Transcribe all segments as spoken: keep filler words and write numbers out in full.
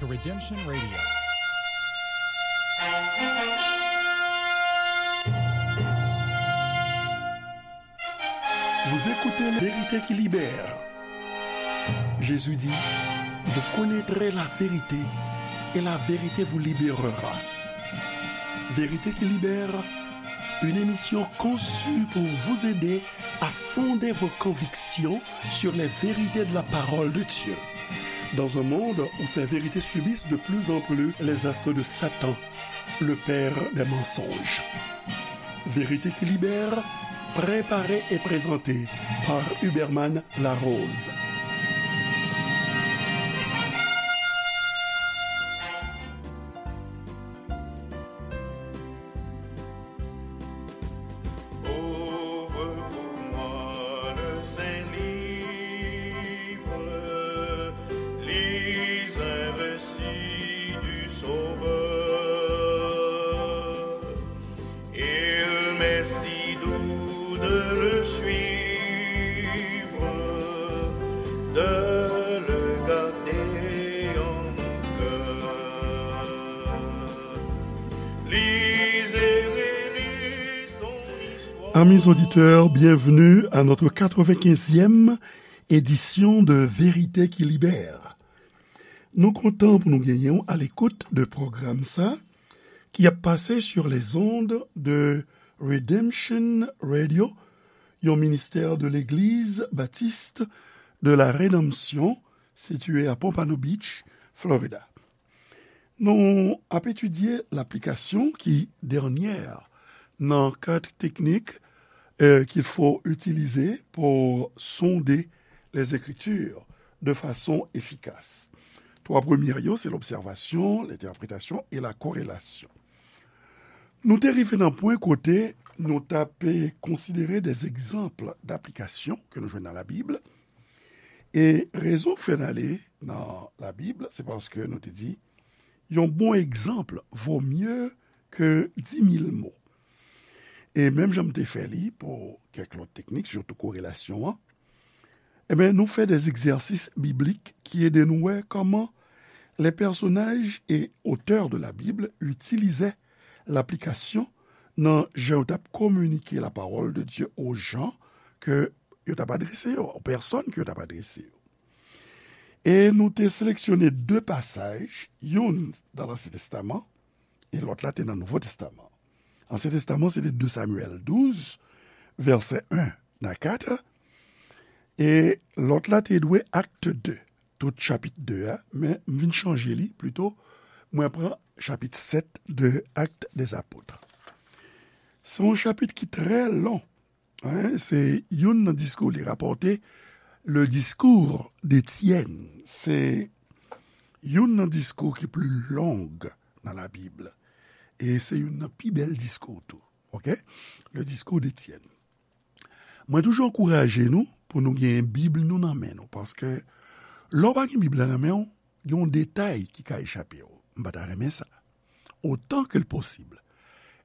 to Redemption Radio. Vous écoutez La Vérité qui libère. Jésus dit, vous connaîtrez la vérité et la vérité vous libérera. Vérité qui libère, une émission conçue pour vous aider à fonder vos convictions sur les vérités de la parole de Dieu. Dans un monde où ces vérités subissent de plus en plus les assauts de Satan, le père des mensonges. Vérité qui libère, préparée et présentée par Huberman Larose. Ouvre pour moi le saint livre, lis un récit du Sauveur. Il m'est si doux de le suivre, de le garder en mon cœur. Lisez, relisez son histoire. Amis auditeurs, bienvenue à notre quatre-vingt-quinzième édition de Vérité qui libère. Nou kontan pou nou genyen w à l'écoute de pwogram sa ki ap pase sur les ondes de Redemption Radio, yon ministè de l'Église Baptiste de la Rédemption, sitiye a Pompano Beach, Florida. Nou ap etidye laplikasyon ki dènyè nan quatre techniques, euh, qu'il faut utiliser pour sonder les Écritures de façon efficace. Twa premye yo, se l'observation, l'interprétation et la corrélation. Nou te rive nan pwen kote nou t ap konsidere des exemples d'application ke nou jwenn nan Labib. E rezon k fè n ale nan Labib, se paske nou te di, yon bon egzanp vo mye ke di mil mo. E menm jan m te fè li pou kèk lòt teknik, sitou korelasyon an, ebyen, nou fè des exercices bibliques ki ede nou wè kòman les personnages et auteurs de la Bible utilizaient l'application nan jan yo t ap kominike la parole de Dieu aux gens ke yo t ap adrese yo, aux personnes ke yo t ap adrese yo. E nou te seleksyone de pasaj, youn nan Lansyen Testaman, e lòt la te nan Nouvo Testaman. Ansyen Testaman, se te de Samyèl douz, vèsè en a kat, e lòt la te dwe Akt de, tout chapit de a, men m vin chanje li, plito, mwen pran chapit sèt de Actes des Apôtres. Se yon chapit ki trè lon, en, se youn nan diskou, li rapòte le discours d'Étienne. Se youn nan diskou ki pli long nan Labib. E se youn nan pi bèl diskou tou. Oke? Le discours d'Étienne. Mwen toujou ankouraje nou pou nou gen Bib nou nan men nou, paske lè w pa gen Bib la nan men w, gen yon detay ki ka echape w. M pa ta renmen sa. Otan ke l posib,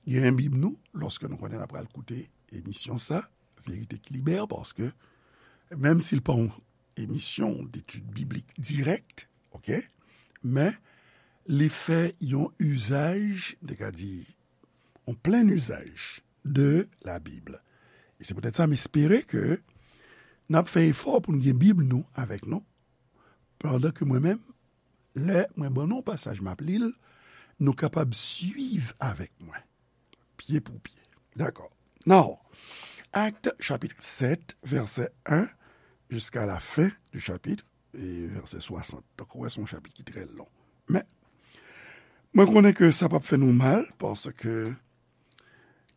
gen Bib nou, lòske nou konnen n ap pral koute emisyon sa, Verite ki Libère, paske menm si l pa yon emisyon detid biblik dirèk, oke, men li fè yon izaj, m te ka di, yon plen izaj de la Bib. E se poutèt sa, m espere ke n ap fè efò pou n gen Bib nou avèk nou, pandan ke mwen menm, lè mwen ban nou yon pasaj, m ap li l, nou kapab swiv avèk mwen, pye pou pye. Dakò. Now, Akt, chapit sèt, vèsè en, jiska la fen di chapit, e vèsè swasant. Donk, ou wè, se yon chapit ki trè lon. Men, mwen konnen ke sa p ap fè nou mal, paske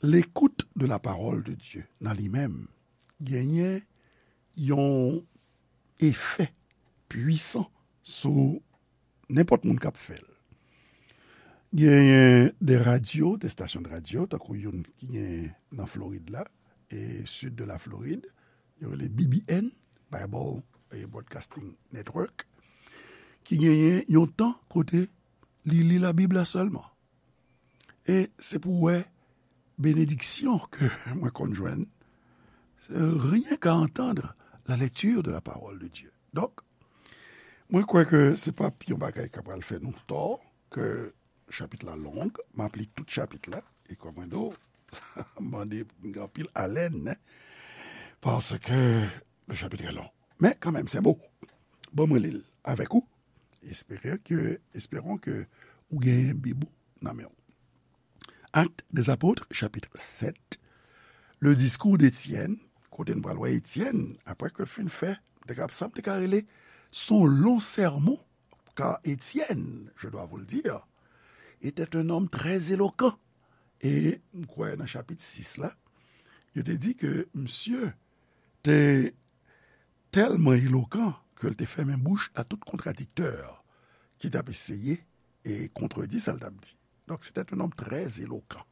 l'écoute de la parole de Dieu, nan li menm, genyen yon efè pwisan sou nenpòt moun k ap fè l. Genyen de radyo, de stasyon de radyo, tankou youn ki gen nan Florid la, e sid de la Florid, yo rele B B N, Bible, eh, Broadcasting Network, ki genyen yon tan kote li li Labib la sèlman. E se pou w wè benediksyon ke mwen konn jwenn, c'est rien qu'à entendre la lecture de la parole de Dieu. Donk, Mwen kwè ke se p ap yon bagay k ap pral fè nou tò, ke chapit la long, m ap li tout chapit la, e kòm mwen di w, mande anpil alèn, paske le chapitre est long. Men kanmenm, se bon. Bon, mwen li l avèk ou. Espérons que, espérons que ou gen Bib ou nan men w. Actes des Apôtres, chapitre sept. Le discours d'Étienne, kote n pral wè Etyèn, apre ke l fin fè, m te ka, sa m te ka rele, son long sermon, car Étienne, je dois vous le dire, était un homme très éloquent. E m kwè nan chapit sis la, yo te di ke misye te tèlman elokan ke l te fèmen bouch a tout kontradiktè ki t ap eseye e kontredi sa l t ap di. Donc, c'était un homme très éloquent.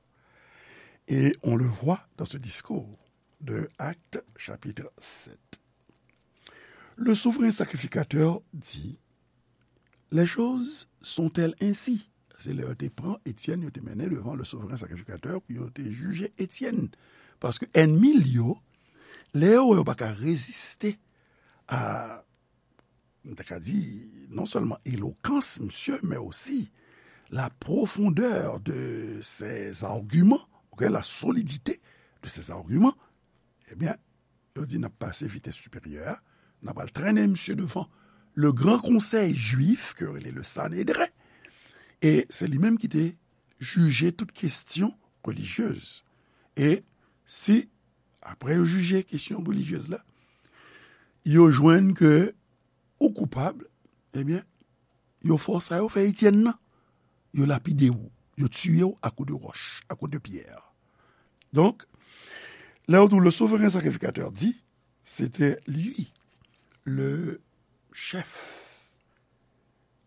Et on le voit dans ce discours de Actes, chapitre sept. Le souverain sacrificateur dit, les choses sont-elles ainsi? Se lè yo te pran Etyèn, yo te mennen devan le souverain sacrificateur pou yo te jije Etyèn. Paske ènmi l yo, lè yo wè yo pa ka reziste a, m ta ka di, non sèlman elokans misye, men osi la profondeur de ses arguments, ok, la solidité de ses arguments, ebyen, yo di n ap pase vitès siperyè a, n ap al trennen misye devan le gran konsèy jwif, ke yo rele le Sanedren, e se li menm ki te jije tout kesyon relijyez. E si, apre yo jije kesyon relijyez la, yo jwenn ke ou koupab, ebyen, yo fè w sa yo fè Etyèn nan. Yo lapide w, yo tiye w à coups de roche, à coups de pierre. Donc, là où le souverain sacrificateur dit, c'était lui, le chef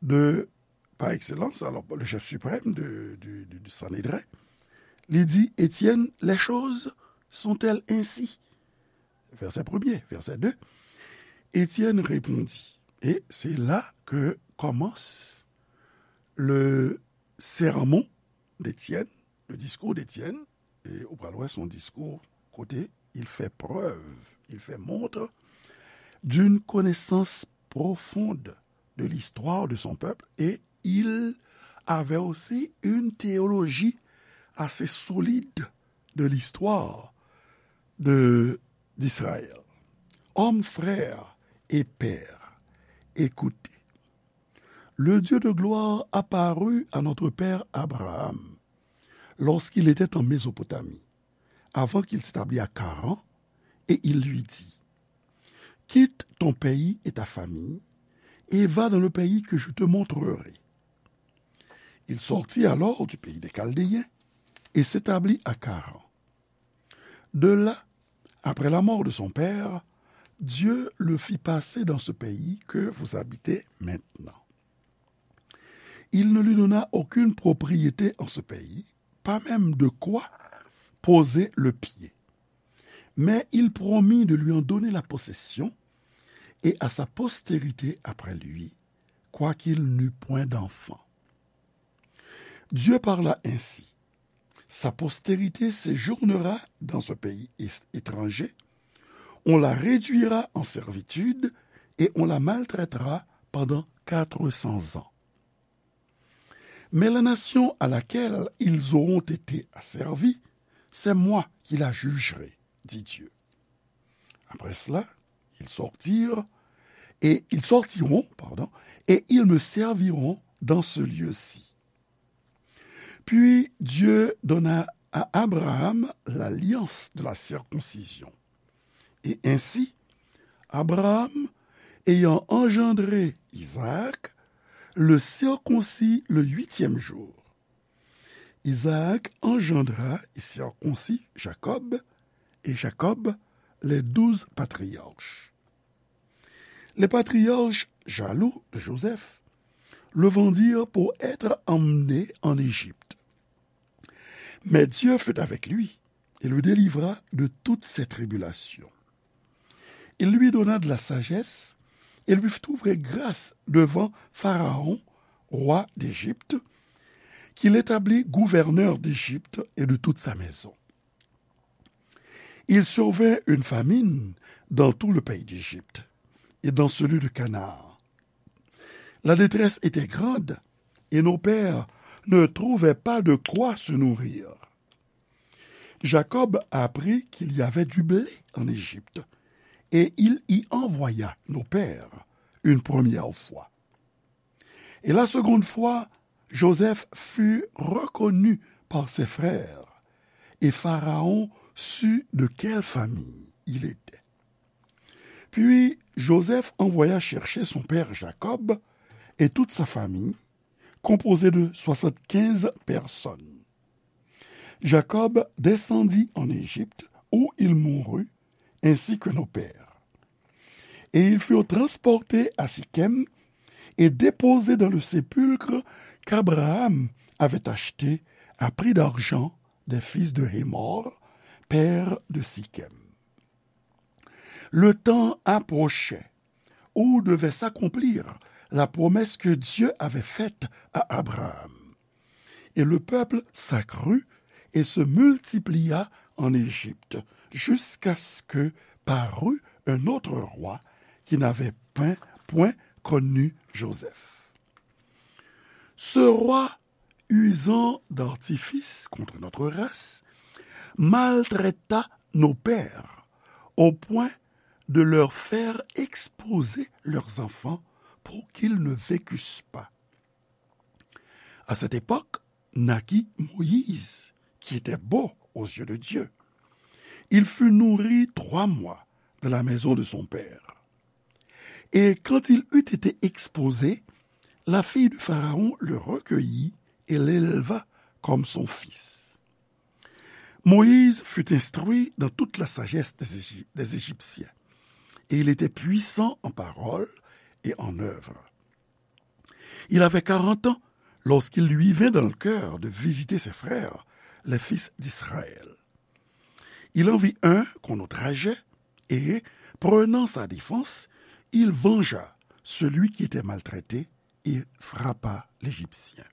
de, par excellence, alors le chef suprême de, du, du, du Sanhédrin, li di, Étienne, les choses sont-elles ainsi? Verset premier, verset deux. Étienne répondit. Et c'est là que commence le sermon d'Étienne, le discours d'Étienne. E ou pral wè, se yon diskou kote il fait preuve, il fait montre d'une connaissance profonde de l'histoire de son peuple et il avait aussi une théologie assez solide de l'histoire de, d'Israël. Hommes, frères et pères, écoutez. Le Dieu de gloire apparut à notre père Abraham lorsqu'il était en Mésopotamie, avant qu'il s'établît à Charan, et il lui dit, quitte ton pays et ta famille, et va dans le pays que je te montrerai. Il sortit alors du pays des Chaldéens et s'établit à Charan. De là, après la mort de son père, Dieu le fit passer dans ce pays que vous habitez maintenant. Il ne lui donna aucune propriété en ce pays, pas même de quoi poser le pied. Mais il promit de lui en donner la possession et à sa postérité après lui, quoiqu'il n'eût point d'enfant. Dieu parla ainsi. Sa postérité séjournera dans ce pays é-, étranger, on la réduira en servitude et on la maltraitera pendant quatre cents ans. Mais la nation à laquelle ils auront été asservis, c'est moi qui la jugerai, dit Dieu. Après cela, ils sortirent et ils sortiront, pardon, et ils me serviront dans ce lieu-ci. Puis Dieu donna à Abraham l'alliance de la circoncision. Et ainsi, Abraham, ayant engendré Isaac, le circoncit le huitième jour. Isaac engendra et circoncit Jacob, et Jacob les douze patriarches. Les patriarches, jaloux de Joseph, le vendirent pour être emmené en Égypte. Mais Dieu fut avec lui et le délivra de toutes ses tribulations. Il lui donna de la sagesse et lui fit trouver grâce devant Pharaon, roi d'Égypte, qui l'établit gouverneur d'Égypte et de toute sa maison. Il survint une famine dans tout le pays d'Égypte et dans celui de Canaan. La détresse était grande, et nos pères ne trouvaient pas de quoi se nourrir. Jacob apprit qu'il y avait du blé en Égypte, et il y envoya nos pères une première fois. Et la seconde fois, Joseph fut reconnu par ses frères, et Pharaon sut de quelle famille il était. Puis Joseph envoya chercher son père Jacob et toute sa famille, composée de soixante-quinze personnes. Jacob descendit en Égypte, où il mourut, ainsi que nos pères. Et ils furent transportés à Sichem et déposés dans le sépulcre qu'Abraham avait acheté à prix d'argent des fils de Hémor, père de Sichem. Le temps approchait où devait s'accomplir la promesse que Dieu avait faite à Abraham. Et le peuple s'accrut et se multiplia en Égypte, jusqu'à ce que parut un autre roi qui n'avait point, point connu Joseph. Ce roi, usant d'artifices contre notre race, maltraita nos pères au point de leur faire exposer leurs enfants pour qu'ils ne vécussent pas. À cette époque naquit Moïse, qui était beau aux yeux de Dieu. Il fut nourri trois mois dans la maison de son père. Et quand il eut été exposé, la fille de Pharaon le recueillit et l'éleva comme son fils. Moïse fut instruit dans toute la sagesse des Égy-, des Égyptiens, et il était puissant en parole et en œuvre. Il avait quarante ans lorsqu'il lui vint dans le cœur de visiter ses frères, les fils d'Israël. Il en vit un qu'on outrageait, et, prenant sa défense, il vengea celui qui était maltraité et frappa l'Égyptien.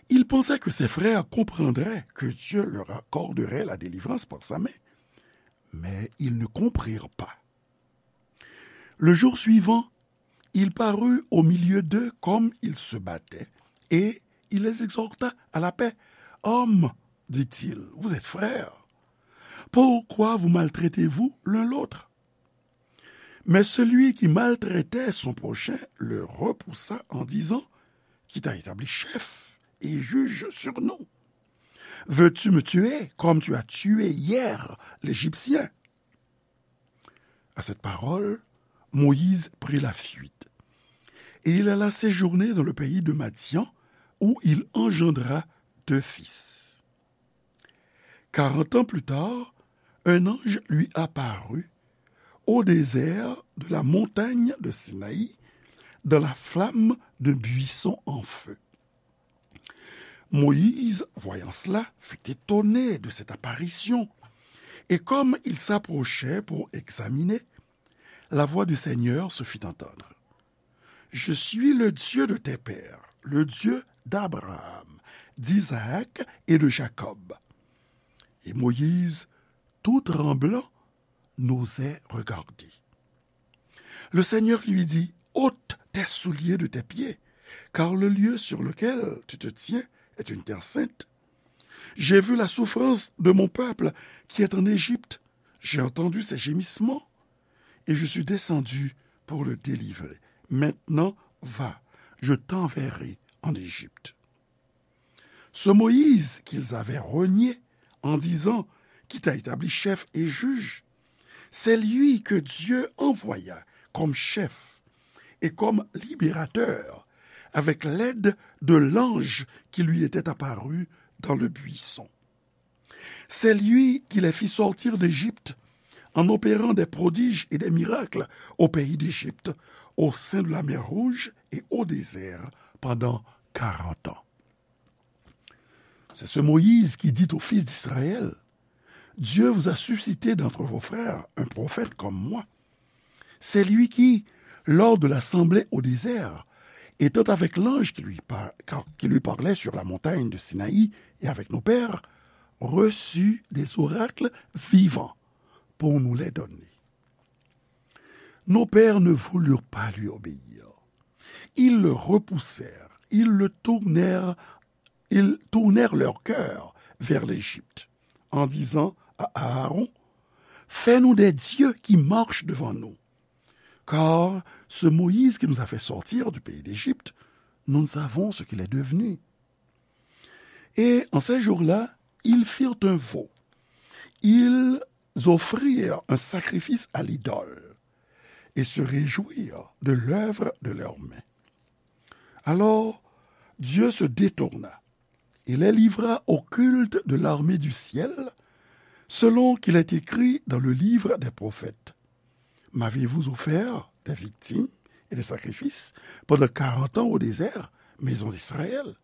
Il pensait que ses frères comprendraient que Dieu leur accorderait la délivrance par sa main, mais ils ne comprirent pas. Le jour suivant, il parut au milieu d'eux comme ils se battaient, et il les exhorta à la paix. Hommes, dit-il, vous êtes frères. Pourquoi vous maltraitez-vous l'un l'autre ? Mais celui qui maltraitait son prochain le repoussa en disant, qui t'a établi chef et juge sur nous ? Veux-tu me tuer comme tu as tué hier l'Égyptien ? À cette parole, Moïse prit la fuite, et il alla séjourner dans le pays de Madian, où il engendra deux fils. Quarante ans plus tard, un ange lui apparut au désert de la montagne de Sinaï, dans la flamme d'un buisson en feu. Moïse, voyant cela, fut étonné de cette apparition, et comme il s'approchait pour examiner, la voix du Seigneur se fit entendre. Je suis le Dieu de tes pères, le Dieu d'Abraham, d'Isaac et de Jacob. Et Moïse, tout tremblant, n'osait regarder. Le Seigneur lui dit, ôte tes souliers de tes pieds, car le lieu sur lequel tu te tiens est une terre sainte. J'ai vu la souffrance de mon peuple qui est en Égypte. J'ai entendu ses gémissements et je suis descendu pour le délivrer. Maintenant, va, je t'enverrai en Égypte. Ce Moïse qu'ils avaient renié en disant, qui t'a établi chef et juge, c'est lui que Dieu envoya comme chef et comme libérateur avec l'aide de l'ange qui lui était apparu dans le buisson. C'est lui qui les fit sortir d'Égypte en opérant des prodiges et des miracles au pays d'Égypte, au sein de la mer Rouge et au désert pendant quarante ans. C'est ce Moïse qui dit aux fils d'Israël, Dieu vous a suscité d'entre vos frères un prophète comme moi. C'est lui qui, lors de l'assemblée au désert, étant avec l'ange qui lui par-, qui lui parlait sur la montagne de Sinaï et avec nos pères, reçut des oracles vivants pour nous les donner. Nos pères ne voulurent pas lui obéir. Ils le repoussèrent, ils le tournèrent, ils tournèrent leur cœur vers l'Égypte, en disant à Aaron, fais-nous des dieux qui marchent devant nous. Car ce Moïse qui nous a fait sortir du pays d'Égypte, nous ne savons ce qu'il est devenu. Et en ces jours-là, ils firent un veau. Ils offrirent un sacrifice à l'idole et se réjouirent de l'œuvre de leurs mains. Alors, Dieu se détourna et les livra au culte de l'armée du ciel, selon qu'il est écrit dans le livre des prophètes. M'avez-vous offert des victimes et des sacrifices pendant quarante ans au désert, maison d'Israël ?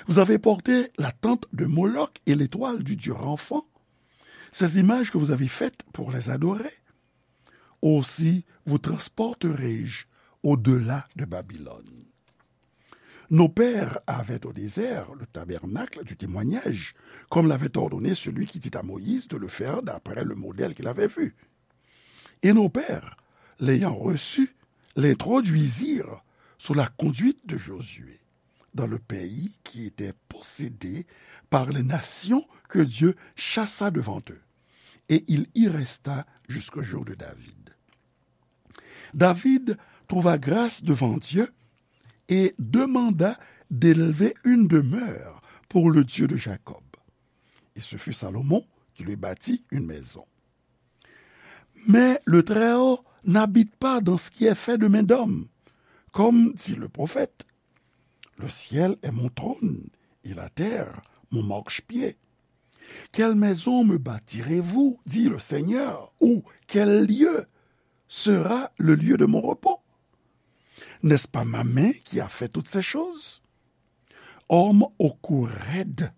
Vous avez porté la tente de Moloch et l'étoile du dieu Renfant, ces images que vous avez faites pour les adorer. Aussi vous transporterai-je au-delà de Babylone. Nos pères avaient au désert le tabernacle du témoignage, comme l'avait ordonné celui qui dit à Moïse de le faire d'après le modèle qu'il avait vu. Et nos pères, l'ayant reçu, l'introduisirent sous la conduite de Josué dans le pays qui était possédé par les nations que Dieu chassa devant eux. Et il y resta jusqu'au jour de David. David trouva grâce devant Dieu et demanda d'élever une demeure pour le Dieu de Jacob. Et ce fut Salomon qui lui bâtit une maison. Mais le Très-Haut n'habite pas dans ce qui est fait de main d'homme. Comme dit le prophète, le ciel est mon trône et la terre mon marchepied. Quelle maison me bâtirez-vous, dit le Seigneur, ou quel lieu sera le lieu de mon repos ? N'est-ce pas ma main qui a fait toutes ces choses ? Homme au cou raide,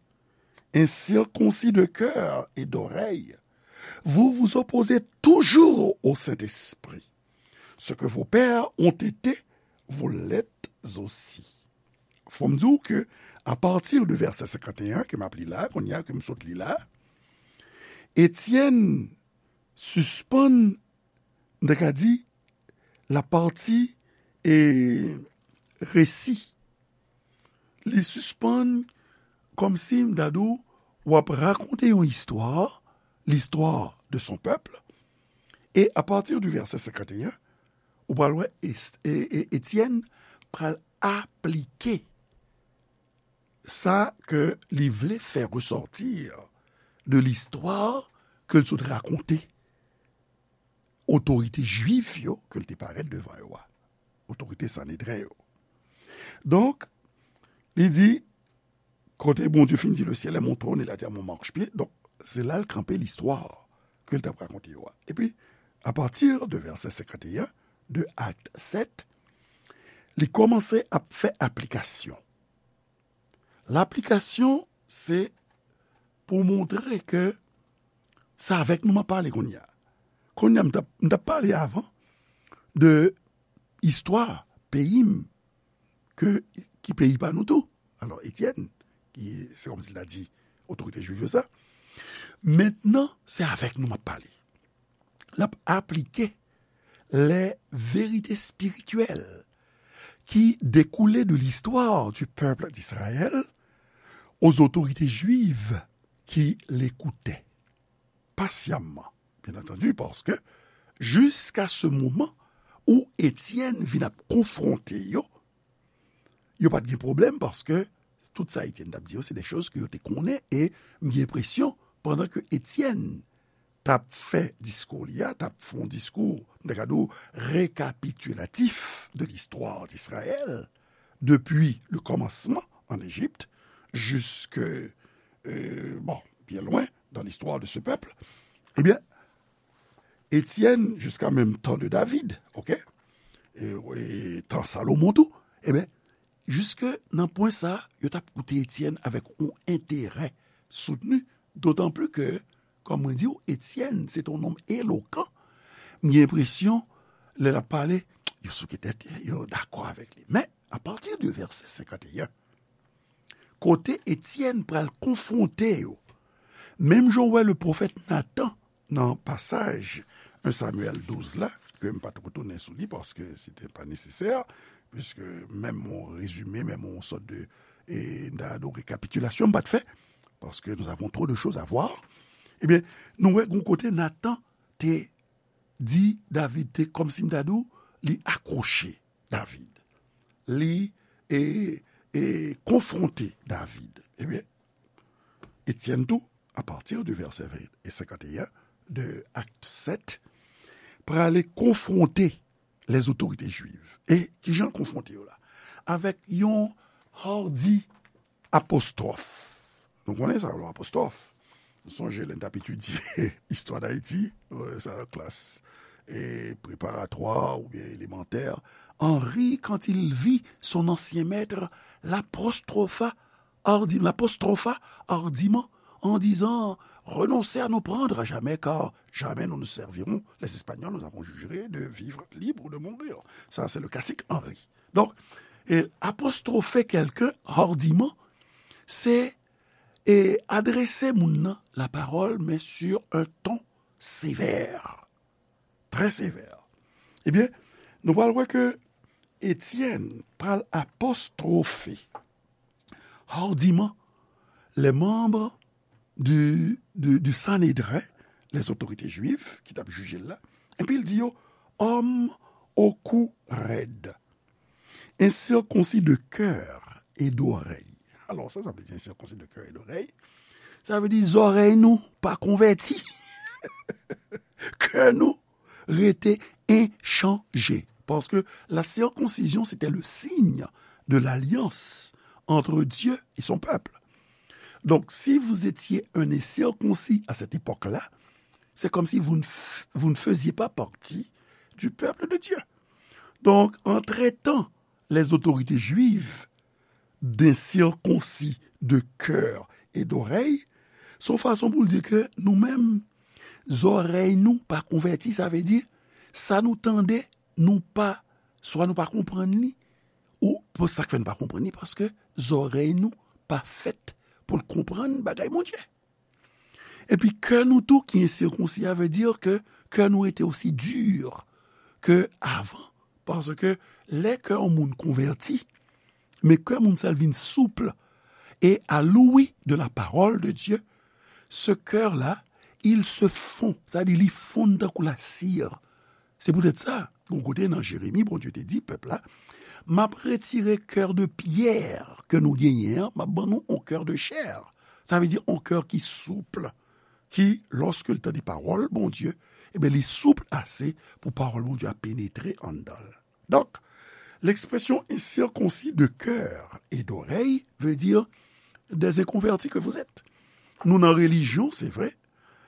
incirconcis de cœur et d'oreille, vous vous opposez toujours au Saint-Esprit. Ce que vos pères ont été, vous l'êtes aussi. Fò m di w ke, apati de vèsè senkanteyen ke m ap li la, kounye a ke m sot li la, Etyèn sispann, m ta ka di, lapati e resi. Li sispann kòmsi m ta di w, w ap rakonte yon istwa, l'histoire de son peuple, e apati de vèsè senkanteyen, ou pral wè Etyèn pral aplike sa ke li vle fè resòti de listwa ke l sot rakonte otorite jwif yo ke l te parèt devan yo a, otorite Sanedren yo. Donk, li di, kote Bondye fin di, le ciel est mon trône et la terre mon marchepied, donk, se la l kanpe listwa ke l t ap rakonte yo a. Epi, apati de vèsè senkanteyen de Akt sèt, li kòmanse ap fè aplikasyon. Laplikasyon, se pou montre ke se avèk nou m ap pale kounye a. Kounye a, m t ap, m t ap pale avan de istwa peyi m, ke, ki peyi pa nou tou. Alò, Etyèn, ki, se kòmsi l ta di otorite jwif yo sa. Mentnan, se avèk nou m ap pale. L ap aplike les vérités spirituelles qui découlaient de l'histoire du peuple d'Israël aux autorités juives qui l'écoutaient patiemment, bien entendu, paske jiska se moman ou Etyèn vin ap konfwonte yo, yo pa t gen pwoblèm paske tout sa Etyèn t ap di yo, se de choz ke yo te konnen, e m gen enpresyon, pandan ke Etyèn t ap fè diskou li a, t ap fè yon diskou, m ta ka di w, récapitulatif de l'histoire d'Israël, depuis le commencement en Égypte, jusque, euh, bon, bien loin dans l'histoire de ce peuple, ebyen, Etyèn, jiska menm tan de David, oke? E, e tan Salomon tou, ebyen, jiske nan pwen sa, yo t ap koute Etyèn avèk yon enterè soutni, dotan pli ke, kòm mwen di w, Etyèn, se te yon nonm elokan. M gen enpresyon, lè l ap pale, yo souke tèt, yo dakò avèk li. Men, apati de vèsè senkanteyen, kote Etyèn pral konfwonte yo, menm jan w wè le pwofèt Natan nan pasaj en Samyèl douz la, ke m pa t retounen sou li paske se te pa nesesè, puisque menm yon rezime, menm yon sòt de, e, m ta di rekapitilasyon m pa t fè, parce que nous avons trop de choses à voir. Ebyen, nou wè gon kote Natan te di David, te kòmsi m ta di w, li akwoche David. Li, e, e, konfwonte David. Ebyen, Etyèn tou, à partir du verset vingt et cinquante et un de Acte sept, prale konfwonte les autorités juives. E kijan l konfwonte yo la? Avèk yon hardi apostwòf. Nou konnen sa, lè apostwòf. Nou sonje lè n t ap etidye istwa Dayiti, euh, sa nan klas, e preparatwa oubyen elemantè. Henri, quand il vit son ancien maître, l'apostropha hardi-, l'apostropha hardiment en disant, renoncez à nous prendre à jamais, car jamais nous ne servirons les Espagnols, nous avons juré de vivre libres ou de mourir. Ça, c'est le classique Henri. Donc, et apostropher quelqu'un hardiment, c'est, et adresser moun nan la parole, mais sur un ton sévère. Très sévère. Ebyen, nou pral wè ke Étienne pral apostrophe hardiment les membres du, du, du Sanhédrin, les autorités juives, ki t ap jije l la, epi l di yo, hommes au cou raide, incirconcis de cœur et d'oreille. Alò, sa, sa vle di incirconcis de cœur et d'oreille. Sa vle di zòrèy nou pa konvèti. Kè nou rete enchanje. Parce que la circoncision, c'était le signe de l'alliance entre Dieu et son peuple. Donc, si vous étiez un incirconcis à cette époque-là, c'est comme si vous ne, f- vous ne faisiez pas partie du peuple de Dieu. Donc, en traitant les autorités juives d'incirconcis de cœur et d'oreille, se yon fason pou l di ke nou menm, zòrèy nou pa konvèti, sa vle di, sa nou tande, nou pa, swa nou pa konprann li, ou pou sa k fè n pa konprann li, paske zòrèy nou pa fèt pou l konprann bagay Bondye. Epi kè nou tou ki ensirkonsi a vle di ke kè nou rete osi di ke avan. Paske lè kè yon moun konvèti, men kè moun sa l vin souple et à l'ouïe de la parole de Dieu, ce cœur-là, il se fond, sa di li fonn tankou lasir. Se poutèt sa, yon kote nan Jeremi, Bondye te di pèp la, m ap retire kè de pyè ke nou genyen an, m ap ban nou yon kè de chè. Sa vle di yon kè ki souple, ki, lòske l tande pawòl Bondye, ebyen, li souple ase pou pawòl Bondye a penetre anndan l. Donc, l'expression incirconcis de cœur et d'oreille veut dire des inconvertis que vous êtes. Nou nan relijyon, se vre,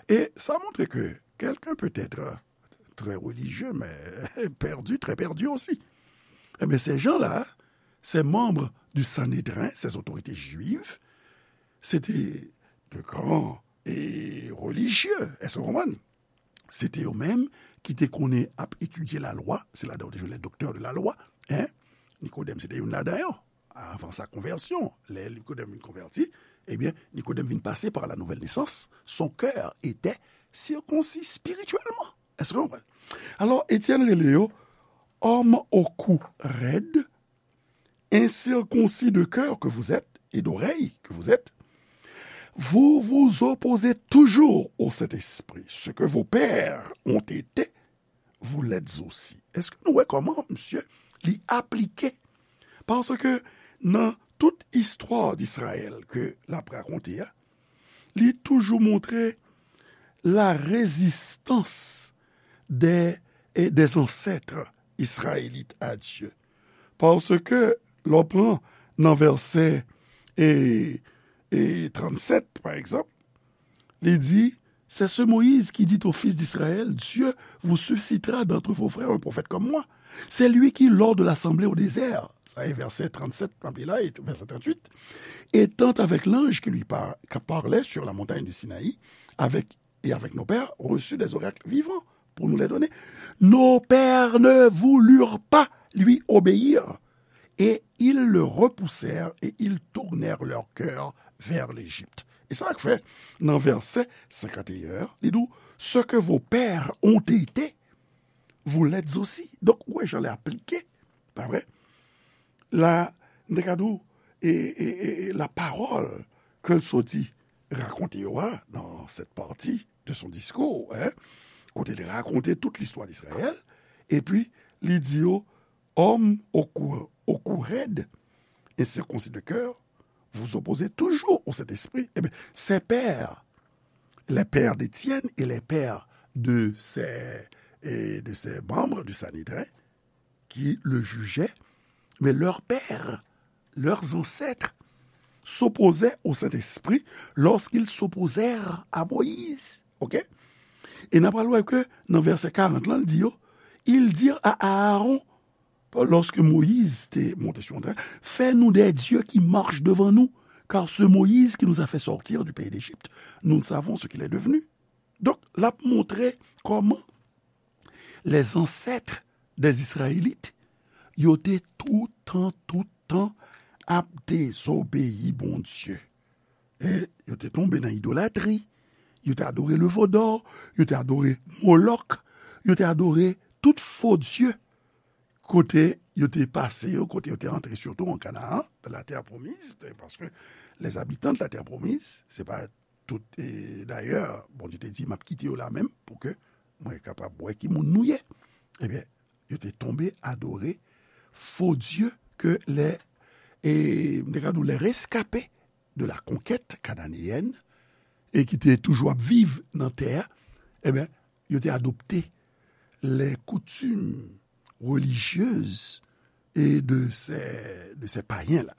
e sa montre ke quelqu'un peut être très religieux, mais perdu, très perdu aussi. Eh bien, ces gens-là, ces membres du Sanhédrin, ces autorités juives, c'était de grands et religieux. Est-ce que vous comprenez? Se te yo menm ki te konnen ap etidye lalwa, se ladan yo te jwenn les docteurs de la loi, hein? Nikodèm se te youn ladan yo. Avan sa konvèsyon, lè Nikodèm vin konvèti, ebyen, Nikodèm vin pase par la nouvelle naissance, son cœur était circoncis spirituellement. Est-ce que vous comprenez? Alors, Étienne rele yo, homme au cou raide, incirconcis de cœur que vous êtes, et d'oreille que vous êtes, vous vous opposez toujours au Saint-Esprit. Ce que vos pères ont été, vous l'êtes aussi. Est-ce que nou wè kòman, misye, li aplike? Paske nan tout istwa d'Israël ke l ap rakonte a, li toujou montre la résistance des, et des ancêtres israélites à Dieu. Paske lè w pran nan vèsè, e, e, trannsèt, pa egzanp, li di, c'est ce Moïse qui dit aux fils d'Israël, Dieu vous suscitera d'entre vos frères un prophète comme moi. C'est lui qui, lors de l'assemblée au désert, sa e vèsè trannsèt, m ap li la, e vèsè tranntuit, étant avec l'ange qui lui par- qui parlait sur la montagne du Sinaï, avec, et avec nos pères, reçut des oracles vivants pour nous les donner. Nos pères ne voulurent pas lui obéir, et ils le repoussèrent, et ils tournèrent leur cœur vers l'Égypte. E sa k fè, nan vèsè senkant e en an, li di w, ce que vos pères ont été, vous l'êtes aussi. Donk, ou wè jan l aplike, pa vre? la, m te ka di w, e, e, e, e la parole ke l soti rakonte yo a, dans cette partie de son discours, hein, kote l rakonte tout listwa d Izrayèl, epi li di yo, hommes au cou, au cou raide et circoncis de cœur, vous opposez toujours au Saint-Esprit. Eh bien, ces pères, les pères d'Étienne et les pères de ces, et de ces membres du Sanhédrin, qui le jugeaient, mais leurs pères, leurs ancêtres, s'opposaient au Saint-Esprit lorsqu'ils s'opposèrent à Moïse. OK? E n ap pral wè ke nan vèsè karant lan, l di yo, ils dirent à Aaron, lorsque Moïse était monté sur le trône, fais-nous des dieux qui marchent devant nous, car ce Moïse qui nous a fait sortir du pays d'Égypte, nous ne savons ce qu'il est devenu. Donk, l ap montre kòman les ancêtres des Israélites, yo te toutan, toutan ap dezobeyi Bondye. E yo te tonbe nan idolatri, yo te adore le veau d'or, yo te adore Molòk, yo te adore tout fo dye kote yo te pase yo, kote yo te antre, sitou an Kanaan, dans la terre promise, paske les habitants de la terre promise, se pa tout, e dayè, Bondye te di, m ap kite yo la menm pou ke mwen kapab wè ki moun nou ye. Ebyen, yo te tonbe adore fo dye ke les, e, m te ka di w, les rescapés de la conquête cananéenne, e ki te toujou ap viv nan tè a, ebyen, yo te adopte les coutumes religieuses et de ces, de ces païens-là.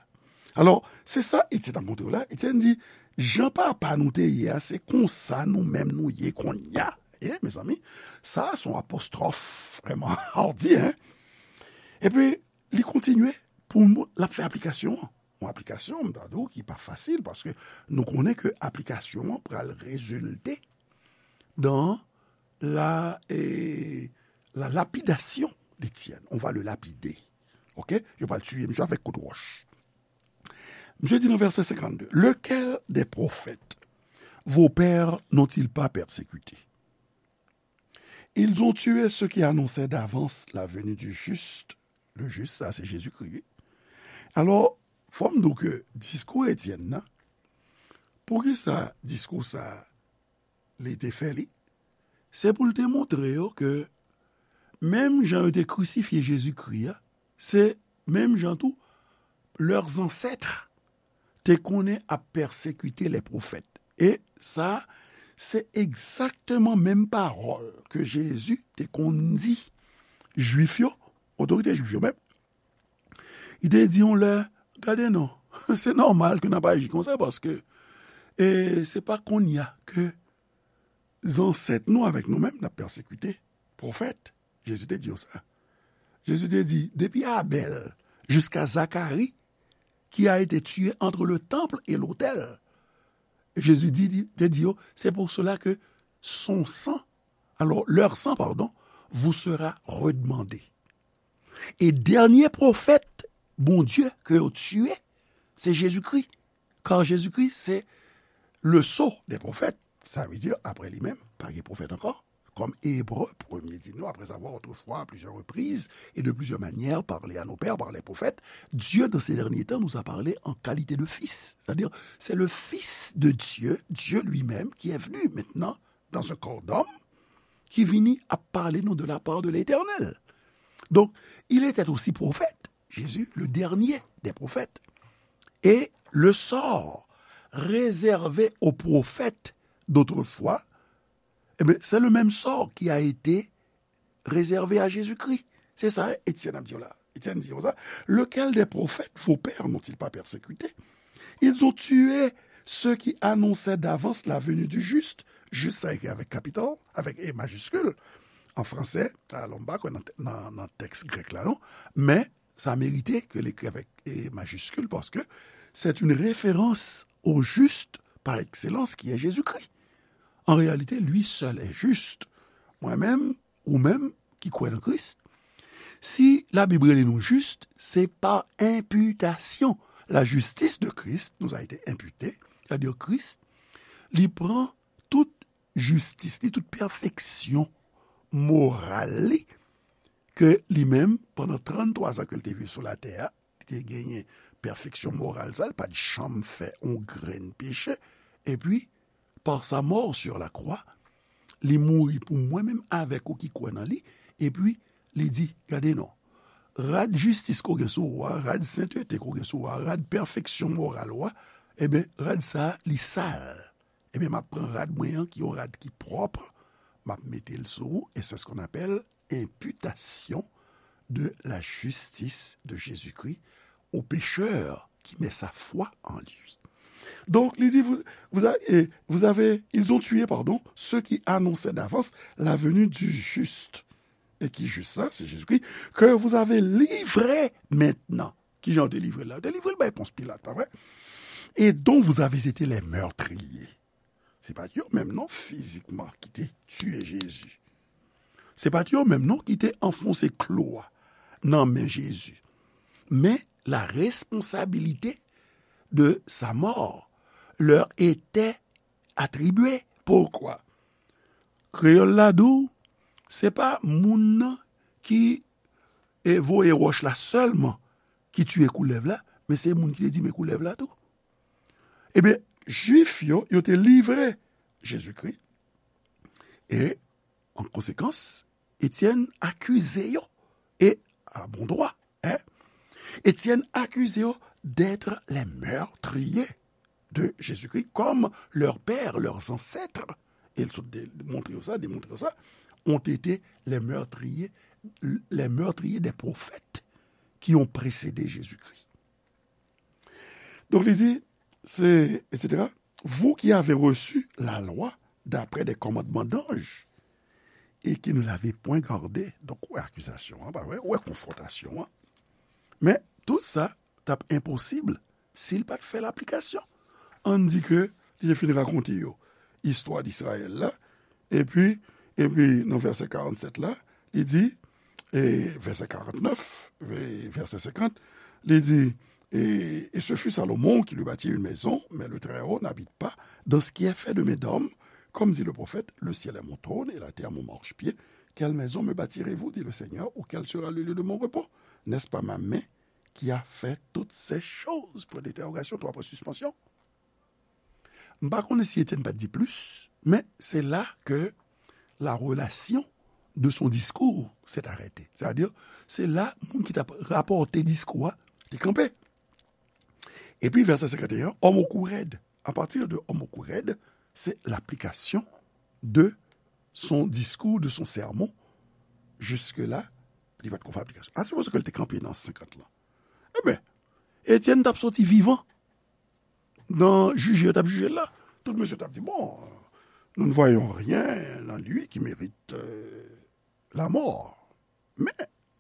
Alò, se sa Etienne ap montre w la. Etienne di, jan papa nou te ye a, se konsa nou menm nou ye kounye a. E, mezanmi, sa se yon apostwòf vrèman hardi, hein? Epi, li kontinye pou l ap fè aplikasyon an. Yon aplikasyon, m ta di w, ki pa fasil, paske nou konnen ke aplikasyon an pral rezilte dans la, eh, la lapidasyon d'Etienne. On va le lapider. OK? Yo pral tiye misye avèk kout wòch. Misye di nan vèsè senkannde, lequel des prophètes vos pères n'ont-ils pas persécuté? Ils ont tué ceux qui annonçaient d'avance la venue du juste. Le juste, sa se Jezikri, wi. Alò, fò m di w ke diskou Etienne nan, poukisa diskou sa a, li te fè li? Se pou l te montre yo ke menm jan yo te krisifye Jezikri a, se menm jan tou leurs ancêtres te konnen ap pèsekite les prophètes. E sa, se egzakteman menm pawòl ke Jezi te konn di Jwif yo, otorite Jwif yo menm. Li te di yon lè, gade non, se nòmal ke n ap aji konsa, paske, e, se pa kounye a ke zansèt nou avèk nou menm n ap pèsekite pwofèt. Jezi te di yo sa. Jezi te di, depi Abèl jiska Zakari, qui a été tué entre le temple et l'autel. Jezi di, di, te di yo, c'est pour cela que son sang, alors leur sang, pardon, vous sera redemandé. E dènye pwofèt Bondye ke yo tiye, se Jezikri. Kar Jezikri se le sceau des prophètes. Sa vle di, apre li menm, pa gen pwofèt ankò. Kòm Ebre premye di nou, après avoir autrefois, à plusieurs reprises et de plusieurs manières, parlé à nos pères par les prophètes, Dieu, dans ces derniers temps, nous a parlé en qualité de fils. C'est-à-dire, c'est le Fils de Dieu, Dieu lui-même, qui est venu maintenant dans un corps d'homme, ki vini ap pale nou de la part de l'Éternel. Donc, il était aussi prophète, Jésus, le dernier des prophètes. Et le sort réservé aux prophètes d'autrefois, eh bien, c'est le même sort qui a été réservé à Jésus-Christ. Se sa Etienne ap di w la. Etienne di konsa, lequel des prophètes vos pères n'ont-ils pas persécuté? Ils ont tué ceux qui annonçaient d'avance la venue du juste. Juste, sa ekri avèk kapital, avèk E majiskil. An fransè, alò, m pa kwè nan, nan, nan tèks grèk la, non. Men, sa merite ke l ekri avèk E majiskil, paske c'est une référence au juste par excellence qui est Jésus-Christ. En réalité, lui seul est juste. Mwen menm, ou menm ki kwè nan Kris, si Labib rele nou jis, se pa enpitasyon. La justice de Christ nous a été imputée, c'est-à-dire Kris, li pran tout jistis li, tout pèfeksyon moral li, ke li menm, pandan tranntwa zan ke l te viv sou latè a, li te genyen pèfeksyon moral sa, li pa t janm fè yon grenn peche. Epi, par sa mort sur la croix, li mouri pou mwen menm avèk ou ki kwè nan li, epi li di, gade non, rad jistis ke w gen sou ou a, rad sentete ke w gen sou ou a, rad pèfeksyon moral ou a, ebyen, rad sa a, li sal. Ebyen, m ap pran rad mwen an, ki yon rad ki pwòp, m ap mete l sou ou, et c'est ce qu'on appelle imputation de la justice de Jésus-Christ au pécheur qui met sa foi en lui. Donc, li di, vous, vous, a- eh, vous avez, ils ont tué, pardon, ceux qui annonçaient d'avance la venue du juste. Et qui juste ça, c'est Jésus-Christ, que vous avez livré maintenant. Kijan yo te livre l la? Yo te livre l bay Pons Pilat, pa vre? Et dont vous avez été les meurtriers. Se pa t yo menm non fizikman ki te tiye Jezi. Se pa t yo menm non ki te anfonse klou a nan men Jezi. Men la responsabilité de sa mort leur était attribuée. Poukwa? Kreyòl la di w, se pa moun nan ki e voye wòch la sèlman ki tiye koulèv la, men se moun ki te di men koulèv la tou. Ebyen, Jwif yo, yo te livre Jezikri, e, an konsekans, Etyèn akize yo, e, a bon dwa, en, Etyèn akize yo d'être les meurtriers de Jésus-Christ, comme leurs pères, leurs ancêtres, e l sot de- montre yo sa, demontre yo sa, ont été les meurtriers, les meurtriers des prophètes qui ont précédé Jésus-Christ. Donc, il dit, c'est, et cetera, vous qui avez reçu la loi d'après des commandements d'anges et qui ne l'avez point gardée. Donc, ou wè akizasyon an, pa vre? Ou wè konfwontasyon an. Men, tout sa t ap enposib si l pa t fè laplikasyon. Ann di ke li te fin rakonte yo istwa Izrayèl la, epi, epi nan vèsè karannsèt la, li di, e vèsè karantnèf, e vèsè senkant, li di, et, et ce fut Salomon qui lui bâtit une maison, mais le Très-Haut n'habite pas dans ce qui est fait de main d'homme, comme dit le prophète, le ciel est mon trône et la terre mon marchepied. Quelle maison me bâtirez-vous, dit le Seigneur, ou quel sera le lieu de mon repos? N'est-ce pas ma main qui a fait toutes ces choses? Point d'interrogation, trois points suspension. M pa konnen si Etienne pa t di plis, men se la ke la relation de son discours s'est arrêtée. Sètadi, se la moun ki t ap rapòte diskou a te kanpe. Epi vèsè senkant e en, homme au cou raide. À partir de homme au cou raide, c'est l'application de son discours, de son sermon. Jusque-là, li pa t ko fè aplikasyon. A sipoze ke l te kanpe nan senkant lan. Ebyen, Etienne t ap soti vivan nan jije yo t ap jije l la. Tout mesye t ap di, bon, nous ne voyons rien en lui qui mérite, euh, la mort. Men,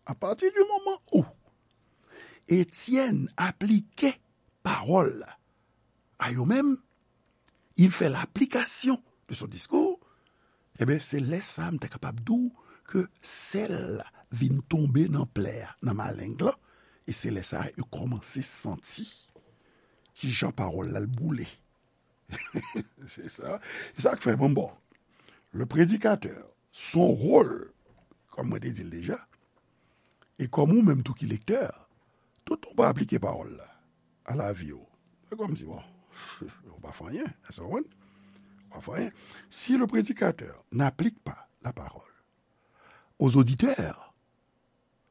à partir du moment où Etienne aplike pawòl la a yo menm, il fait l'application de son discours, ebyen, se lè sa a m ta kapab di w ke sèl la vin tonbe nan plè a, nan maleng lan, e se lè sa a yo kòmanse santi kijan pawòl la l boule. Se sa. Se sa k fè, bon, bon. Le prédicateur, son rôle, kòm mwen te di l deja, e kòm ou menm tou ki lektè, tout ou pa aplike pawòl la a lavi w, se kòmsi, bon, ou pa fè anyen, èske w konprann? Ou pa fè anyen. Si le prédicateur n'applique pas la parole aux auditeurs,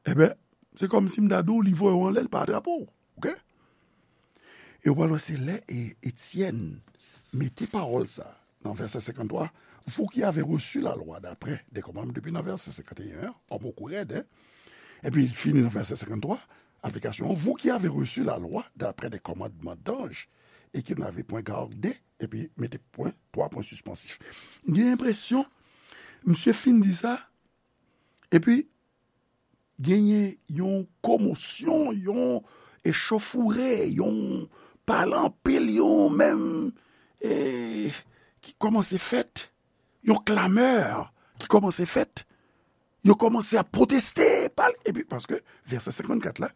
ebyen, se kòmsi m ta di w, li voye w anlè, l pa atrape w. Oke? E w pral wè se lè, e, Etienne mete pawòl sa nan vèsè senkant twa, vous qui avez reçu la loi d'après des commandements, depi nan vèsè senkant e en, an, homme au cou raide, en. Epi, fini nan vèsè senkant twa, aplikasyon an, vous qui avez reçu la loi d'après des commandements d'anges et qui n'avez point gardé, epi mete pwen, twa pwen sispansif. M gen enpresyon, misye fin di sa, epi genyen yon komosyon, yon echauffourée, yon pale anpil, yon menm, e, ki kòmanse fèt, yon clameur ki kòmanse fèt. Yo kòmanse ap pwoteste, pale, epi paske vèsè senkant kat la,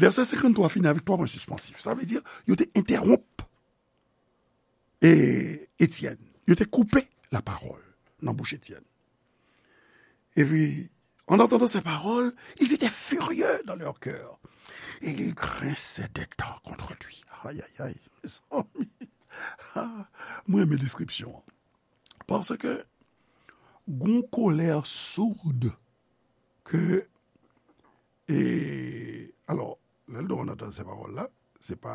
vèsè senkant twa fini avèk twa pwen sispansif. Sa vle di, yo te entèwonp e Etienne. Yo te koupe lapawòl nan bouch Etienne. Epi, En entendant ces paroles, ils étaient furieux dans leur cœur. Et ils grinçaient des dents contre lui. Ay, ay, ay, mezanmi. Ah, mwen renmen deskripsyon an. Paske gon kolè soud ke, e, alò, lè l di en entendant ces paroles la, se pa,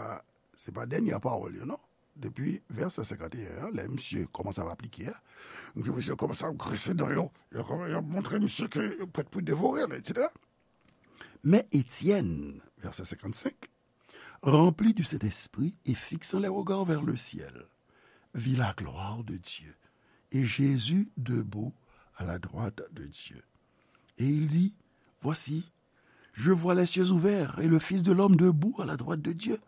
se pa dènye pawòl yo, non. Depi vèsè senkanteyen an, lè misye kòmanse ap aplike a, misye kòmanse ap grinse dan yo, yo kòman-, yo montre misye ke yo prèt pou devore l, etsetera. Mais Étienne, verset cinquante-cinq, rempli du Saint-Esprit et fixant les regards vers le ciel, vit la gloire de Dieu et Jésus debout à la droite de Dieu. Et il dit, voici, je vois les cieux ouverts et le Fils de l'homme debout à la droite de Dieu.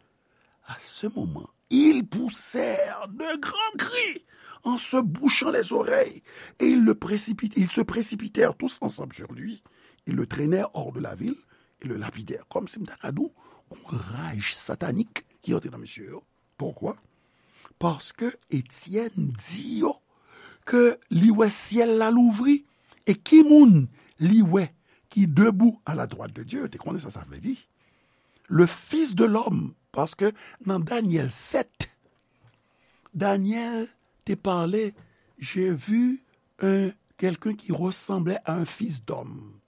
À ce moment, ils poussèrent de grands cris en se bouchant les oreilles et ils le précipit-, ils se précipitèrent tous ensemble sur lui. Ils le traînèrent hors de la ville et le lapidèrent. Kòmsi m ta ka di w, yon raj satanik ki antre nan mesye yo. Poukwa? Paske Etyèn di yo ke li wè syèl la louvri, e ki moun li wè ki debout à la droite de Dieu? Te konnen sa sa vle di. Le Fils de l'homme, paske nan Danyèl sèt, Danyèl te pale, j'ai vu un, quelqu'un qui ressemblait à un fils d'homme,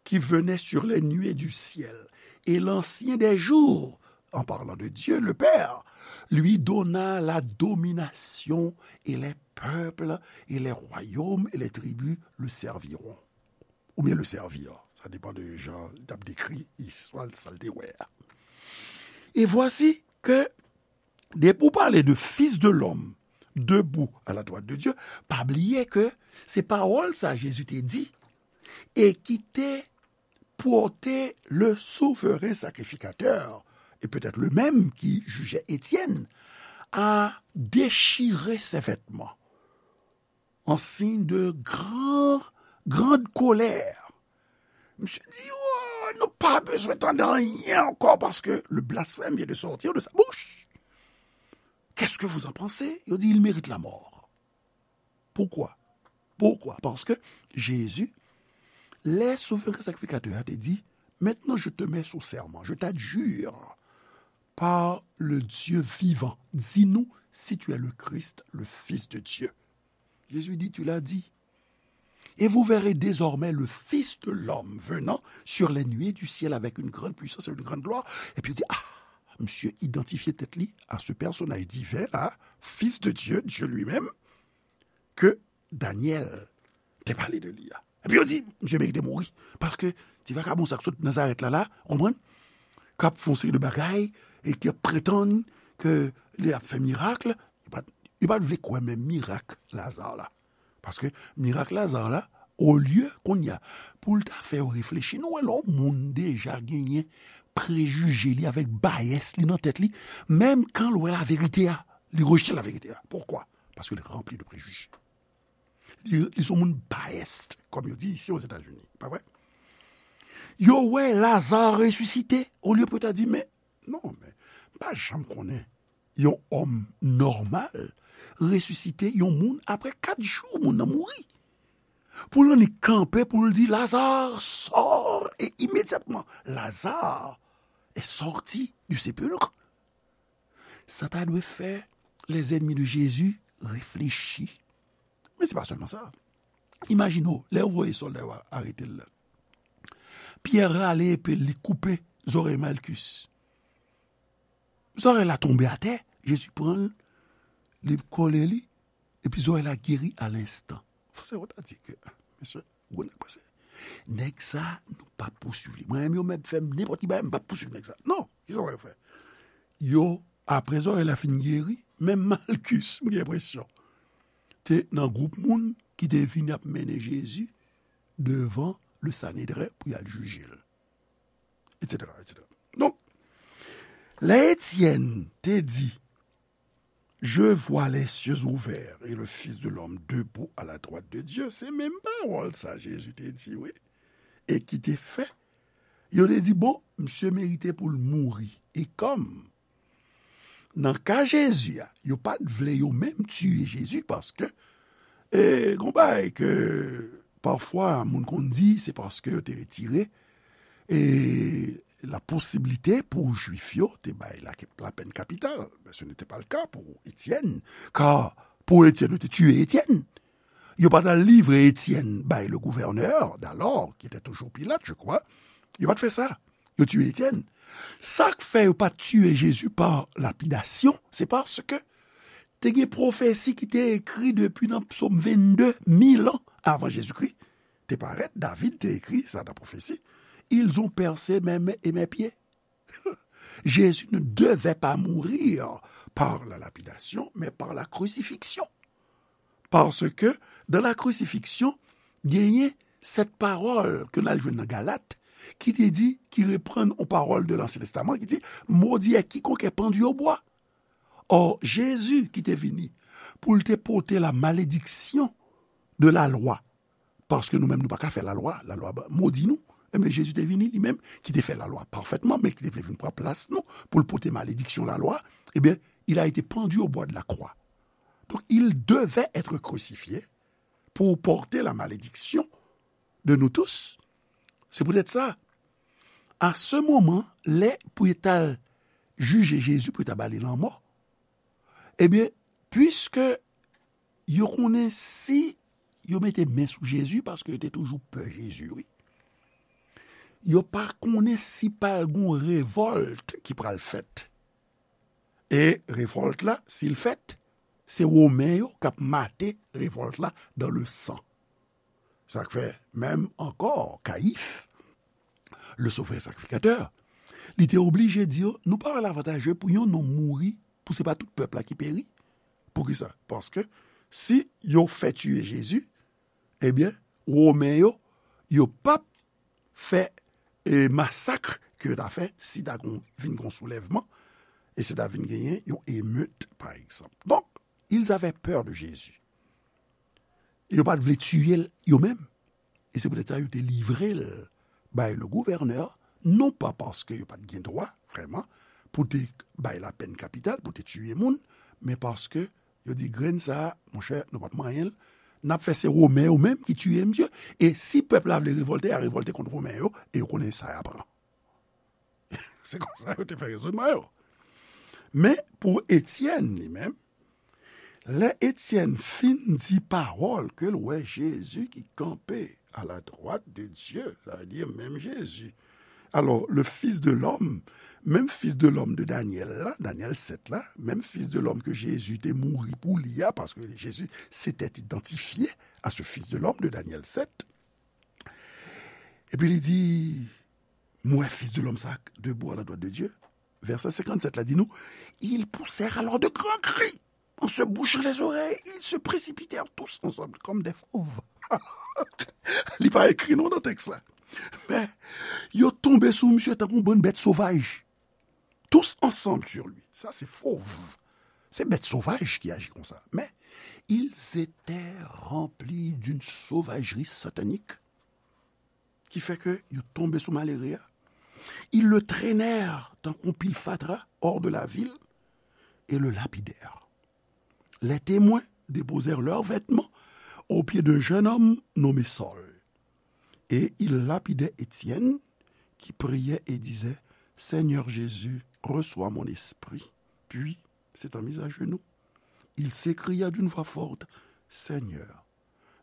qui venait sur les nuées du ciel. Et l'Ancien des jours, en parlant de Dieu le Père, lui donna la domination, et les peuples et les royaumes et les tribus le serviront. Oubyen le servir. Sa depann de jan l t ap dekri istwa l, sa l te wè a. Et voici que, depi w pale de Fils de l'homme debout à la droite de Dieu, pa bliye ke se pawòl sa Jezi te di e ki te pote le souverain sacrificateur, et peut-être le même qui jugeait Étienne, à déchirer ses vêtements en signe de grand, grande colère. Misye di, oh, nou pa bezwen tande anyen ankò paske le blasphème vient de sortir de sa bouche. Qu'est-ce que vous en pensez? Yo di, il mérite la mort. Poukwa? Poukwa? Paske Jezi, lè souverain sacrificateur a te di, maintenant je te mets sous serment, je t'adjure par le Dieu vivant, dis-nous si tu es le Christ, le Fils de Dieu. Jésus dit, tu l'as dit. Et vous verrez désormais le Fils de l'homme venant sur les nuées du ciel avec une grande puissance et une grande gloire. Epi yo di, ah, misye idantifye tèt li a se pèsonaj diven la, Fils de Dieu, Dieu lui-même, ke Danyèl te pale de li a. Epi yo di, misye merite mouri. Paske ti vakabon sa k sot Nazarèt la, la, ou konprann? K ap fè yon seri de bagay e k ap pretann ke li ap fè mirak, yo pa t, yo pa t vle kwè menm mirak Laza la. Paske mirak Laza la, olye kounye a, pou l ta fè yo reflechi, nou wè lè yon moun deja genyen prejije li avèk bayès li nan tèt li, menm kan l wè laverite a, li rejte laverite a. Poukwa? Paske li ranpli de prejije. Li, li se yon moun biased, kòm yo di isi Ozetazini. Pa vre? Yo wè Laza resisite, olye pou yo ta di, men, non, men, m pa janm konnen yon òm nòmal resisite yon moun apre kat jou, moun nan mouri. Pou l annik kanpe, pou l di, Lazare, sors! E imedyatman, Lazare est sorti du sépulcre. Sa ta dwe fè les ennemis de Jésus reflechi. Men se pa sèlman sa. Imajine w, lè yo voye sòlda yo arete l la. Pyè rale epe l, li koupe zòrèy Malkis. Zòrèy la tonbe atè, Jezi pran l, li kole li, epi zòrèy la geri alenstan. Fò se yo ta di ke, ah, mesye, gwo nèg pase. Nèg sa, nou p ap pouswiv li. Mwen menm, yo mèt fè m nenpòt ki bagay, m p ap pouswiv nèg sa. Non, kisa w wè yo fè? Yo, apre zòrèy la fin geri, menm Malkis, m gen enpresyon, te nan gwoup moun ki te vin ap mennen Jezi devan le Sanedren pou y al jije l, etsetera, etsetera. Donk, lè Etyèn te di, Je vois les cieux ouverts et le Fils de l'homme debout à la droite de Dieu, se menm pawòl sa Jezi te di, wi. E ki te fè, yo te di, bon, misye merite pou l mouri. E kòm, nan ka Jezi a, yo pa t vle yo menm tiye Jezi paske, e, gon bagay ke Pafwa, moun konn di se paske yo te retire e la posiblite pou Jwif yo te bay la, la pèn kapital. Men se n'était pas le cas pour Étienne, car pour Étienne, yo te tiye Étienne. Yo pa t al livre Étienne bay le gouverneur d'alors, qui était toujours Pilate, je crois. Yo pa t fè sa. Yo tiye Étienne. Sa k fè yo pa t tiye Jezi pa lapidasyon, se paske te gen pwofesi ki te ekri depi nan Psaume vingt-deux, mil an avan Jezikri te parèt. David te ekri sa nan pwofesi. Ils ont percé mes mains et mes pieds. Jésus ne devait pas mourir par la lapidation, mais par la crucifixion. Parce que dans la crucifixion, genyen cette parole que nous allons dans Galates, qui te dit, qui reprend aux paroles de l'Ancien Testament, qui dit, maudit est quiconque est pendu au bois. Or, Jezi ki te vini pou l te pote la malediksyon de la lwa, paske nou menm nou pa ka fè la lwa, la lwa modi nou. Ebyen, Jezi te vini li menm, ki te fè la lwa pafètman, men ki te vle vin pran plas nou, pou l pote malediksyon la lwa. Ebyen, il a été pendu au bois de la croix. Donc, il devait être crucifié pour porter la malédiction de nous tous. C'est peut-être ça. À ce moment, lè pou yo t al jije Jezi, pou yo t al ba li lanmò, ebyen, puiske yo konnen si yo mete men sou Jezi, paske yo te toujou pè Jezi, wi. Yo pa konnen si pral gon revòlt ki pral fèt. E revòlt la, si l fèt, se Women yo k ap mate revòlt la dans le sang. Sa k fè, menm ankò, Kayif, le souvren sakrifikatè, li te oblije di yo, nou pa wè l avantaje pou yon nonm mouri, pou se pa tout pèp la ki peri. Poukisa? Paske si yo fè tiye Jezi, ebyen, Women yo, yo p ap fè e masak ke yo ta fè si ta gon, vin gon soulèvman, e si ta vin genyen yon emet, pa egzanp. Donk, ils avaient peur de Jésus. E yo pa t vle tiye l yo menm. E se poutèt sa yo te livre l bay le gouverneur, non pa paske yo pa t gen dwa, vrèman, pou te bay lapèn kapital, pou te tiye moun, men paske yo di, grenn sa a, monchè, nou p ap manyen l. N ap fè se Women yo menm ki tiye misye. E si pèp la vle revòlte, y a revòlte kont Women yo, e yo konnen sa y a pran. Se konsa yo te fè rezonman yo. Men, pou Etyèn, li menm, lè Etyèn fin di pawòl ke l wè Jezi ki kanpe à la droite de Dieu, sa vle di menm Jezi. Alors, le Fils de l'homme, menm Fils de l'homme de Daniel la, Daniel sept la, menm Fils de l'homme ke Jezi te mouri pou li a, paske Jezi s'était identifié à ce Fils de l'homme de Daniel sept. Epi li di, m wè Fils de l'homme sa debout à la droite de Dieu. Vèsè senkannsèt la di nou, ils poussèrent alors de grands cris. En se bouchant les oreilles, ils se précipitèrent tous ensemble comme des fauves. Li pa ekri non nan tèks la. Men, yo tonbe sou misye tankou yon bann bèt sovaj. Tous ensemble sur lui. Sa se fauve. Se bèt sovaj ki aji konsa. Men, ils étaient remplis d'une sauvagerie satanique ki fè ke yo tonbe sou malere a. Ils le traînèrent tankou yon pil fatra hors de la ville et le lapidèrent. Les témoins déposèrent leurs vêtements aux pieds d'un jeune homme nommé Saül. Et ils lapidaient Étienne, qui priait et disait, Seigneur Jésus, reçois mon esprit. Puis, s'étant mis à genoux, il s'écria d'une voix forte, Seigneur,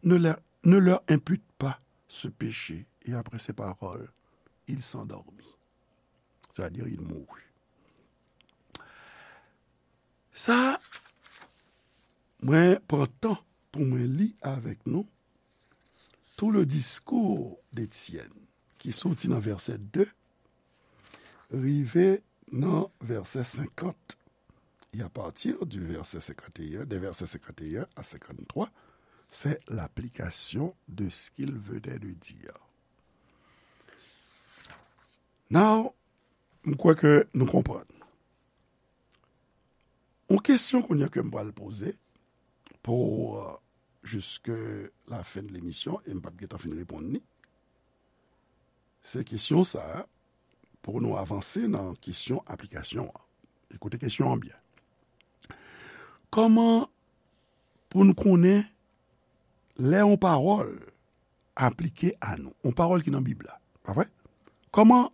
ne leur, ne leur impute pas ce péché. Et après ces paroles, il s'endormit. C'est-à-dire, il mourut. Sa, mwen pran tan pou mwen li avèk nou tout le discours d'Étienne, ki soti nan vèsè de, rive nan vèsè senkant. Et à partir du verset cinquante et un, des versets cinquante et un à cinquante-trois, c'est l'application de ce qu'il venait de dire. Now, m kwè ke nou konprann. Yon kesyon kounye a ke m pral poze pou, euh, jusque la fin de l'émission, e m p ap gentan fin reponn li. Se kesyon sa a, pou nou avanse nan kesyon aplikasyon an. Ekoute kesyon an byen. Kòman pou n konnen lè yon pawòl aplike a nou. Yon pawòl ki nan Bib la. Pa vre? Kòman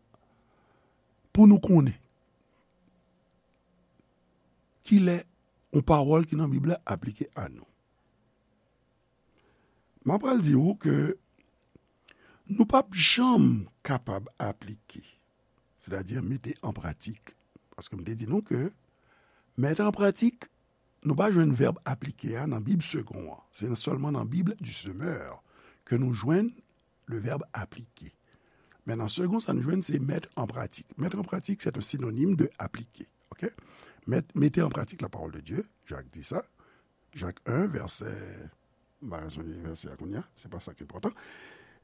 pou nou konnen kilè yon pawòl ki nan Bib la aplike a nou? M ap pral di w ke nou p ap janm kapab aplike, sètadi mete an pratik. Paske m te di nou ke mete an pratik, nou pa jwenn vèb aplike a nan Bib Segond an. Se sèlman nan Bib du Semeur ke nou jwenn le vèb aplike. Men nan Segond, sa nou jwenn, se mete an pratik. Mete an pratik, se yon sinonим de aplike. Ok? Mete, mete an pratik la parole de Dieu, Jak di sa. Jak en, vèsè, m pa ka sonje vèsè a kounye a, se pa sa ki enpòtan.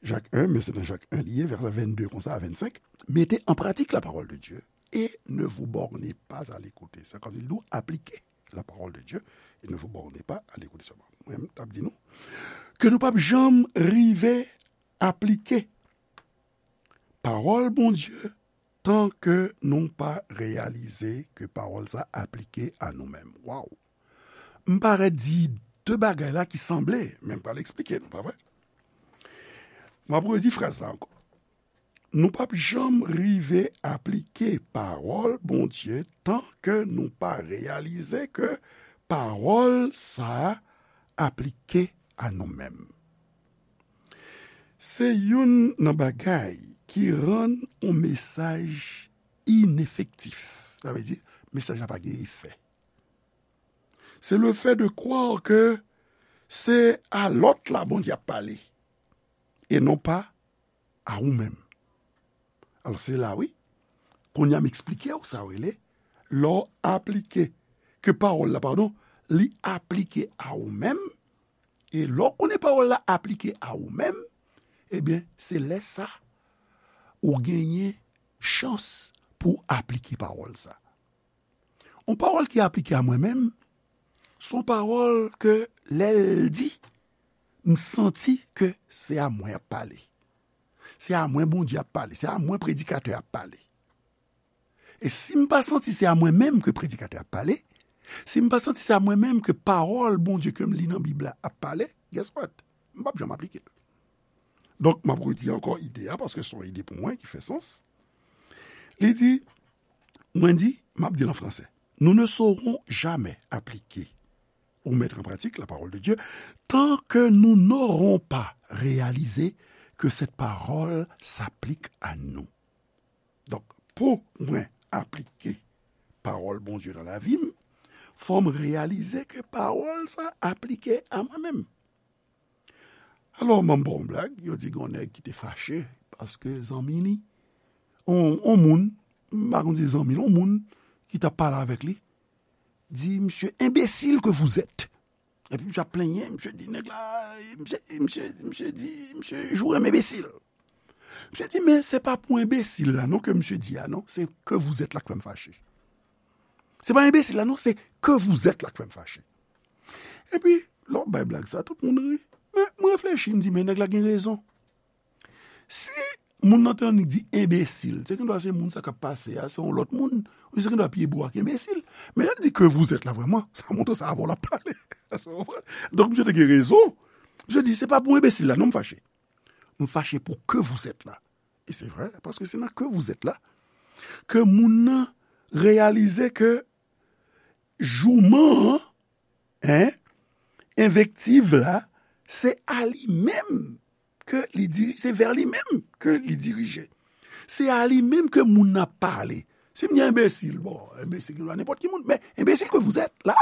Jak en, men se nan Jak en li ye, vèsè vennde konsa a vennsenk. Mettez en pratique la parole de Dieu et ne vous bornez pas à l'écouter. Sa vle di, nou aplike la parole de Dieu et ne vous bornez pas à l'écouter seulement. Mwen, m t ap di nou ke nou p ap janm rive aplike pawòl Bondye tan ke nou pa reyalize ke pawòl sa aplike a nou menm. Waw! M parèt di de bagay la ki sanble, men m pral eksplike nou, pa vre? M ap redi fraz la ankò. Nou p ap janm rive aplike pawòl Bondye tan ke nou pa reyalize ke pawòl sa a aplike a nou menm. Se youn nan bagay ki rann yon mesaj inefektif. Sa vle di, mesaj la pa gen efè. Se le fait de croire que se a lòt la Bondye ap pale, e non pa a ou menm. Alò, se la, wi. Kounye a, m eksplike w sa w rele, lè w aplike, ke pawòl la, padon, li aplike a ou menm, e lè w konnen pawòl la aplike a ou menm, ebyen, se lè sa, ou genyen chans pou w aplike pawòl sa. Yon pawòl ki aplike a mwen menm, se yon pawòl ke lè l di, m santi ke se a mwen y ap pale. Se a mwen Bondye ap pale. Se a mwen predikatè ap pale. E si m pa santi se a mwen menm ke predikatè ap pale, si m pa santi se a mwen menm ke pawòl Bondye ke m li nan Bib la ap pale, guess what? M p ap janm aplike l. Donk, m ap redi ankò ide a, paske se yon ide pou mwen ki fè sans. Li di, mwen di, m ap di l an franse, nous ne saurons jamais appliquer ou mettre en pratique la parole de Dieu tant que nous n'aurons pas réalisé que cette parole s'applique à nous. Donk, pou mwen aplike pawòl Bondye nan lavi m, fò m reyalize ke pawòl sa aplike a mwen menm. Alò, m ap ba w yon blag, yo di gen yon nèg ki te fache paske zanmi li, on, on moun, m pa konn si se zanmi l, on moun ki t ap pale avèk li, di, monsieur, imbécile que vous êtes. Epi misye ap plenyen, misye di nèg la, misye, misye, misye di, misye joure m enbesil. Misye di, men se pa pou enbesil la non ke misye di a non, se que vous êtes la k fè m fache. Se pa enbesil la non, se que vous êtes la k fè m fache. Epi, lè w bay blag sa, tout moun ri. Men, mwen reflechi, m di, men nèg la gen rezon. Si moun nan te annik di enbesil, se gendwa se moun sa k ap pase a, se yon lòt moun, ou se gendwa pi ebo ak enbesil. Men lè l di que vous êtes la vrèman, sa montre se avè w l ap pale. Donk, misye te gen rezon. Misye di, se pa pou enbesil la non m fache. M fache pou que vous êtes la. E se vre, paske se nan que vous êtes la ke moun nan reyalize ke jouman an, en, envektiv la, se a li menm ke li diri-, se vè li menm ke li dirije. Se a li menm ke moun nan ap pale. Si m di enbesil, bon, enbesil ki nenpòt ki moun, men enbesil que vous êtes la,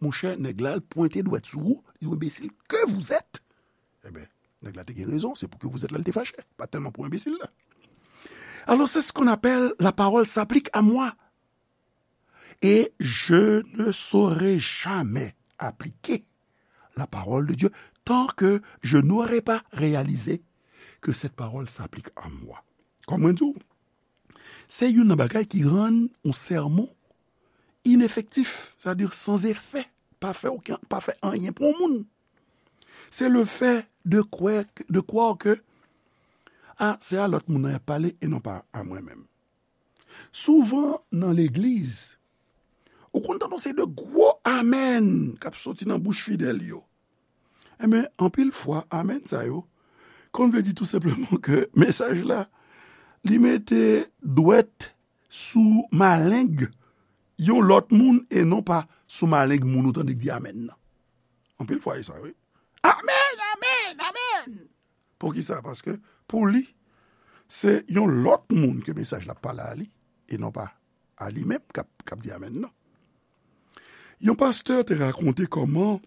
monchè, nèg la, l pwente dwèt sou ou, li enbesil que vous êtes. Ebyen, nèg la te gen rezon, se pou que vous êtes la, l te fache, pa tèlman pou enbesil la. Alors, c'est ce qu'on appelle la parole s'applique à moi. Et je ne saurai jamais appliquer la parole de Dieu tant que je n'aurai pas réalisé que cette parole s'applique à moi. Kòm mwen di w, se youn nan bagay ki rann yon sèmon inefektif, sètadi san efè, pa fè okenn, pa fè anyen pou yon moun. Se le fait de croire, de croire que, ah, se a lòt moun nan y ap pale e non pa a mwen menm. Souvan nan legliz, ou konn tande yon seri de gwo amèn k ap soti nan bouch fidèl yo. Enben, anpil fwa, amèn sa yo, Konn vle di tou senpleman ke mesaj la, li mete dwèt sou maleng yon lòt moun e non pa sou maleng moun ou tande k di amèn nan. Anpil fwa, e sa, wi. Amèn, amèn, amèn! Poukisa? Paske pou li, se yon lòt moun ke mesaj la pale a li, e non pa a li menm k ap, k ap di amèn nan. Yon pastè te rakonte kòman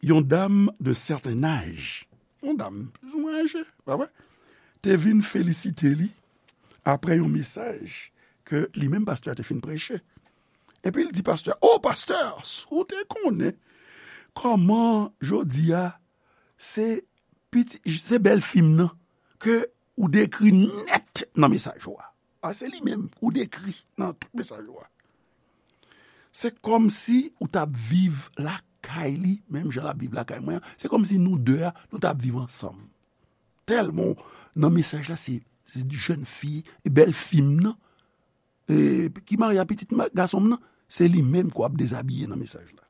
yon dam de sèten aj, yon dam plizoumwen aje, pa vre, te vin felisite li apre yon mesaj ke li menm pastè a te fin preche. Epi l di pastè a, "O pastè, si w te konnen kòman jodi a se piti, se bèl fi m nan ke ou dekri nèt nan mesaj ou a. A, se li menm ou dekri nan tout mesaj ou a. Se kòmsi ou t ap viv lakay li, menm jan l ap viv lakay mwen an. Se kòmsi nou de a, nou t ap viv ansanm." Tèlman nan mesaj la, se, se jèn fi, bèl fi m nan, e, ki marye a pitit ma-, gason m nan, se li menm k ap dezabiye nan mesaj la.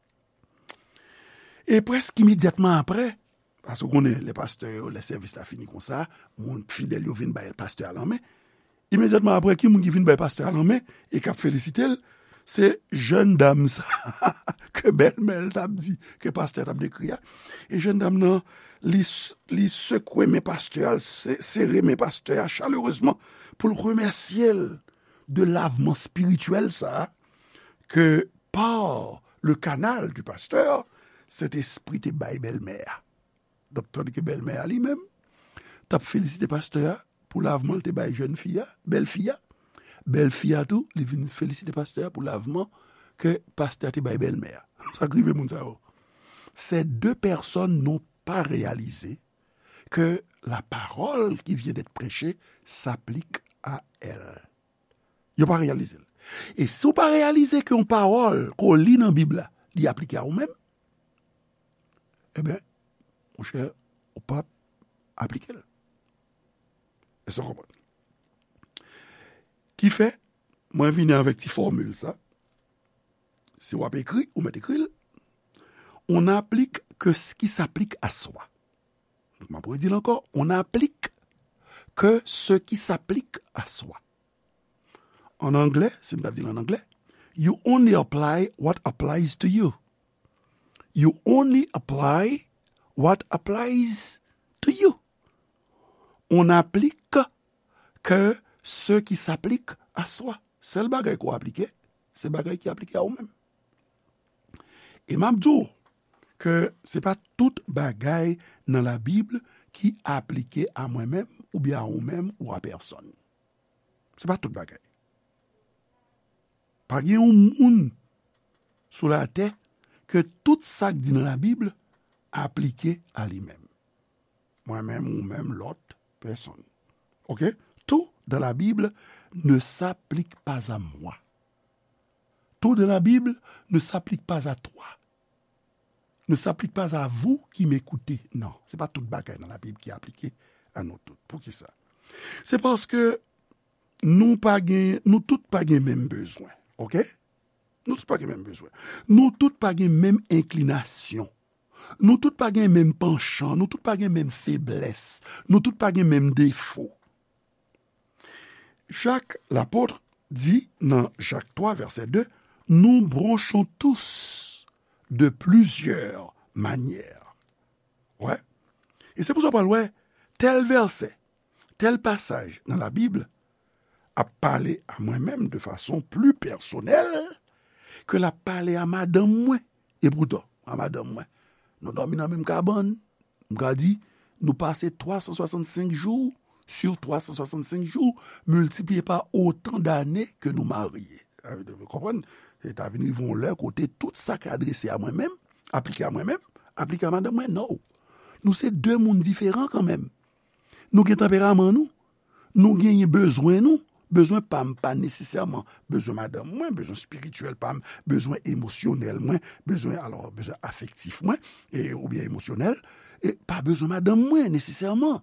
E prèske imedyatman apre, paske w konnen, lè pastè yo, lè sèvis la fini konsa, moun fidèl yo vin bay pastè a lanmen. Imedyatman apre, ki moun ki vin bay pastè a lanmen e k ap felisite l? Se jèn dam sa ke bèlmè l t ap di, ke pastè a t ap dekri a. E jèn dam nan, li s-, li sekwe men pastè a, l se-, sere men pastè a chalerezman pou l remèsye l de lavman espirityèl sa a ke par le canal du pasteur, Sentespri te bay bèlmè a. Donk, tandike bèlmè a li menm t ap felisite pastè a pou lavman l te bay jèn fi a, bèl fi a, bèl fi a tou, li vin felisite pastè a pou lavman ke pastè a te bay bèlmè a. Sa k rive moun sa yo? Ces deux personnes n'ont pas réalisé que la parole qui vient d'être prêchée s'applique à elles. Yo pa reyalize l. E si w pa reyalize ke yon pawòl ke w li nan Bib la, li aplike a ou menm, ebyen, monchè, ou p ap aplike l. Èske w konprann? Ki fè, mwen vini avèk ti fòmil sa. Si w ap ekri, ou mèt ekri l. On n'applique que ce qui s'applique à soi. M ap redi l ankò, on n'applique que ce qui s'applique à soi. An anglè, si m ta di l an anglè, you only apply what applies to you. You only apply what applies to you. On n'applique que ce qui s'applique à soi. Sèl bagay ke w aplike, se bagay ki aplike a ou menm. E m ap di w ke se pa tout bagay nan Labib ki aplike a mwen menm, oubyen a ou menm, ou a pèsonn. Se pa tout bagay. Pa gen yon moun sou latè ke tout sa k di nan Labib aplike a li menm. Mwen menm, ou menm, lòt pèsonn. Ok? Tout dans la Bible ne s'applique pas à moi. Tout dans la Bible ne s'applique pas à toi. Ne s'applique pas à vous qui m'écoutez. Non, se pa tout bagay nan Labib ki aplike a nou tout. Poukisa? Se paske nou pa gen, nou tout pa gen menm bezwen. Ok? Nou tout pa gen menm bezwen. Nou tout pa gen menm enklinasyon. Nou tout pa gen menm panchan. Nou tout pa gen menm feblès. Nou tout pa gen menm defo. Jak lapot di nan Jak twa vèsè de, nous bronchons tous de plusieurs manières. Wè. E se pou sa w pral wè, tèl vèsè, tèl pasaj nan Labib ap pale a mwen menm de fason pli pèsonèl ke l ap pale a madanm mwen. Epoutan, a madanm mwen, nou dòmi nan menm kabann, m ka di, nou pase twa san swasannsenk jou sur twa san swasannsenk jou, miltipliye pa otan dane ke nou marye. Sa vle di, w konprann? Se ta vin rive yon lè kote tout sa k adrese a mwen menm, aplike a mwen menm, aplike a madanm mwen, no. Nou se de moun diferan kanmenm. Nou gen tanperaman nou. Nou genyen bezwen nou. Bezwen pa m pa nesesèman bezwen madanm mwen, bezwen espirityèl pa m, bezwen emosyonèl mwen, bezwen, alò, bezwen afektif mwen, e, oubyen emosyonèl, e pa bezwen madanm mwen nesesèman.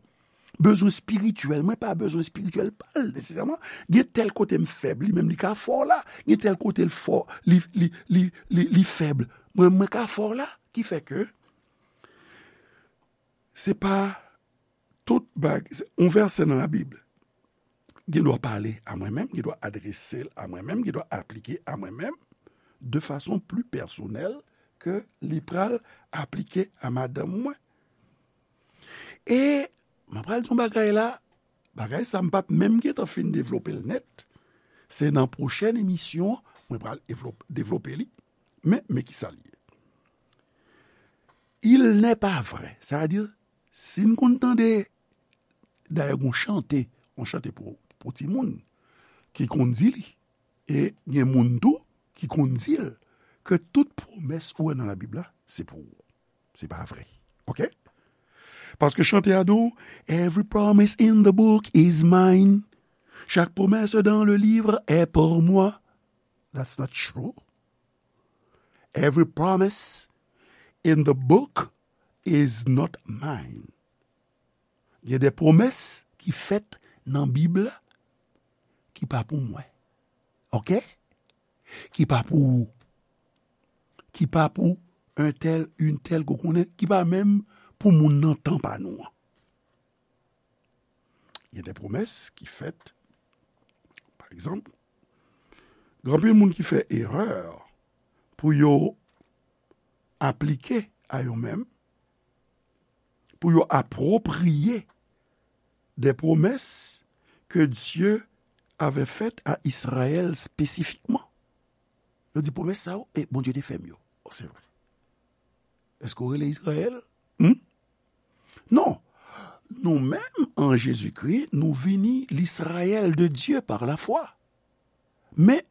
Bezwen espirityèl mwen pa bezwen espirityèl pa l nesesèman. Gen tèl kote m fèb, li menm li ka fò la. Gen tèl kote l fò, li, li, li, li, li fèb. Mwen, mwen ka fò la. Ki fè ke se pa tout bag, yon vèsè nan Labib gen dwa pale a mwen menm, gen dwa adrese l a mwen menm, gen dwa aplike a mwen menm, de fason pli pèsonèl ke li pral aplike a madanm mwen. E mwen pral di yon bagay la, bagay sa m pa t menm gentan fin devlope l nèt. Se nan pwochèn emisyon mwen pral evlop- devlope li. Men, men ki sa l ye. Il n'est pas vrai. Sa vle di, si n konn tande, dayè, gon chante, yon chante pou, pou timoun, ki konn di li, e gen moun tou ki konn di l, ke tout pwomès ou wè nan Labib la, se pou ou. Se pa vre. Oke? Paske chante a di w, "Every promise in the book is mine." Chaque promesse dans le livre est pour moi. That's not true. Every promise in the book is not mine. Gen de pwomès ki fèt nan Bib la ki pa pou mwen. Oke? Ki pa pou ou. Ki pa pou un tel, une telle ke w konnen, ki pa menm pou moun nan tan pa nou an. Gen de pwomès ki fèt, pa egzanp, gen anpil moun ki fè erè pou yo aplike a yo menm, pou yo apwopriye de pwomès ke Dye avè fèt a Izrayèl espesifikman. Yo di, "Pwomès sa yo, e Bondye te fè m yo." O, se vre. Èske w rele Izrayèl? Hmm? Non. Nou menm, an Jezikri, nou vini l'Israël de Dieu par la foi. Men,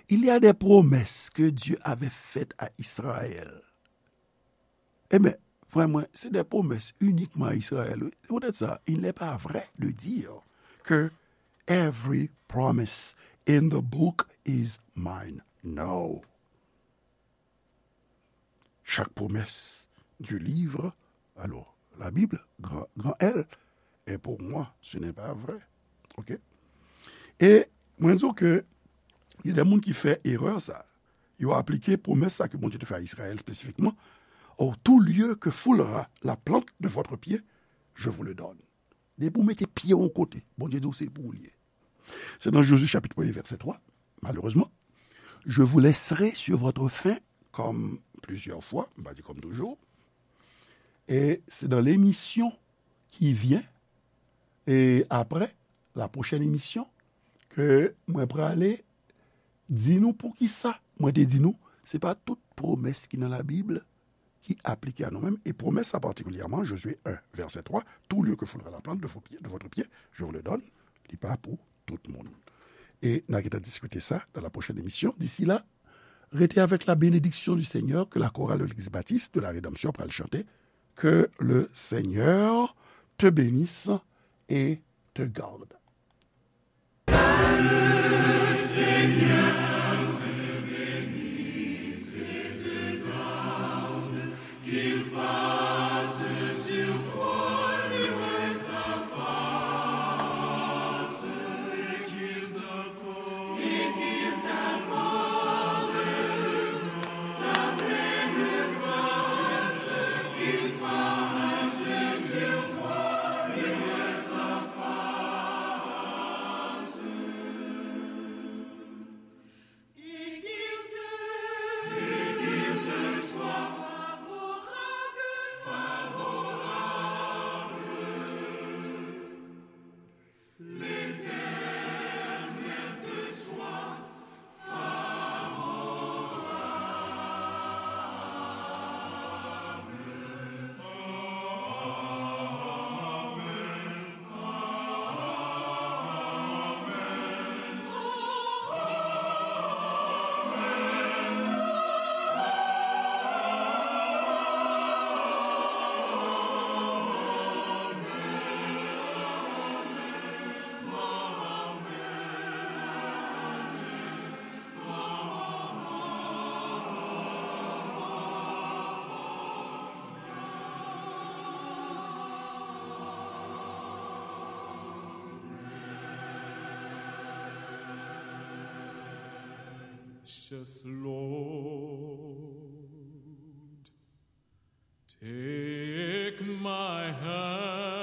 il y a des promesses que Dieu avait faites à Israël. Ebyen, frè mwen, se de pwomès inikman a Izrayèl, wi. Se poutèt sa, il n'est pas vrai de dire que every promise in the book is mine. No. Chaque promesse du livre, alors, la Bible, grand, grand L, est pour moi. Ce n'est pas vrai. Oke? E mwen di w ke gen de moun ki fè erè sa. Yo aplike pwomès sa ke Bondye te fè a Izrayèl espesifikman. "Oh, tout lieu que foulera la plante de votre pied, je vous le donne." Depi w mete pye w yon kote, Bondye di w se pou ou l ye. Se nan Jozye chapit premye, vèsè twa, malerezman. "Je vous laisserai sur votre faim, comme plusieurs fois", m pa di comme toujours. E se dans l'émission qui vient, e apre, la prochaine émission, ke mwen prale di nou poukisa mwen te di nou, se pa tout pwomès ki nan Labib ki aplike a nou menm, e pwomès sa patikilyèman, Jozye en, vèsè twa, "Tout lieu que foulera la plante de vos pieds, de votre pied, je vous le donne", li pa pou tout moun. E n a gentan diskite sa dans la prochaine émission. D'ici là, restez avec la bénédiction du Seigneur que la chorale de l'Église baptiste de la Rédemption pral chante. Que le Seigneur te bénisse et te garde. Precious Lord, take my hand.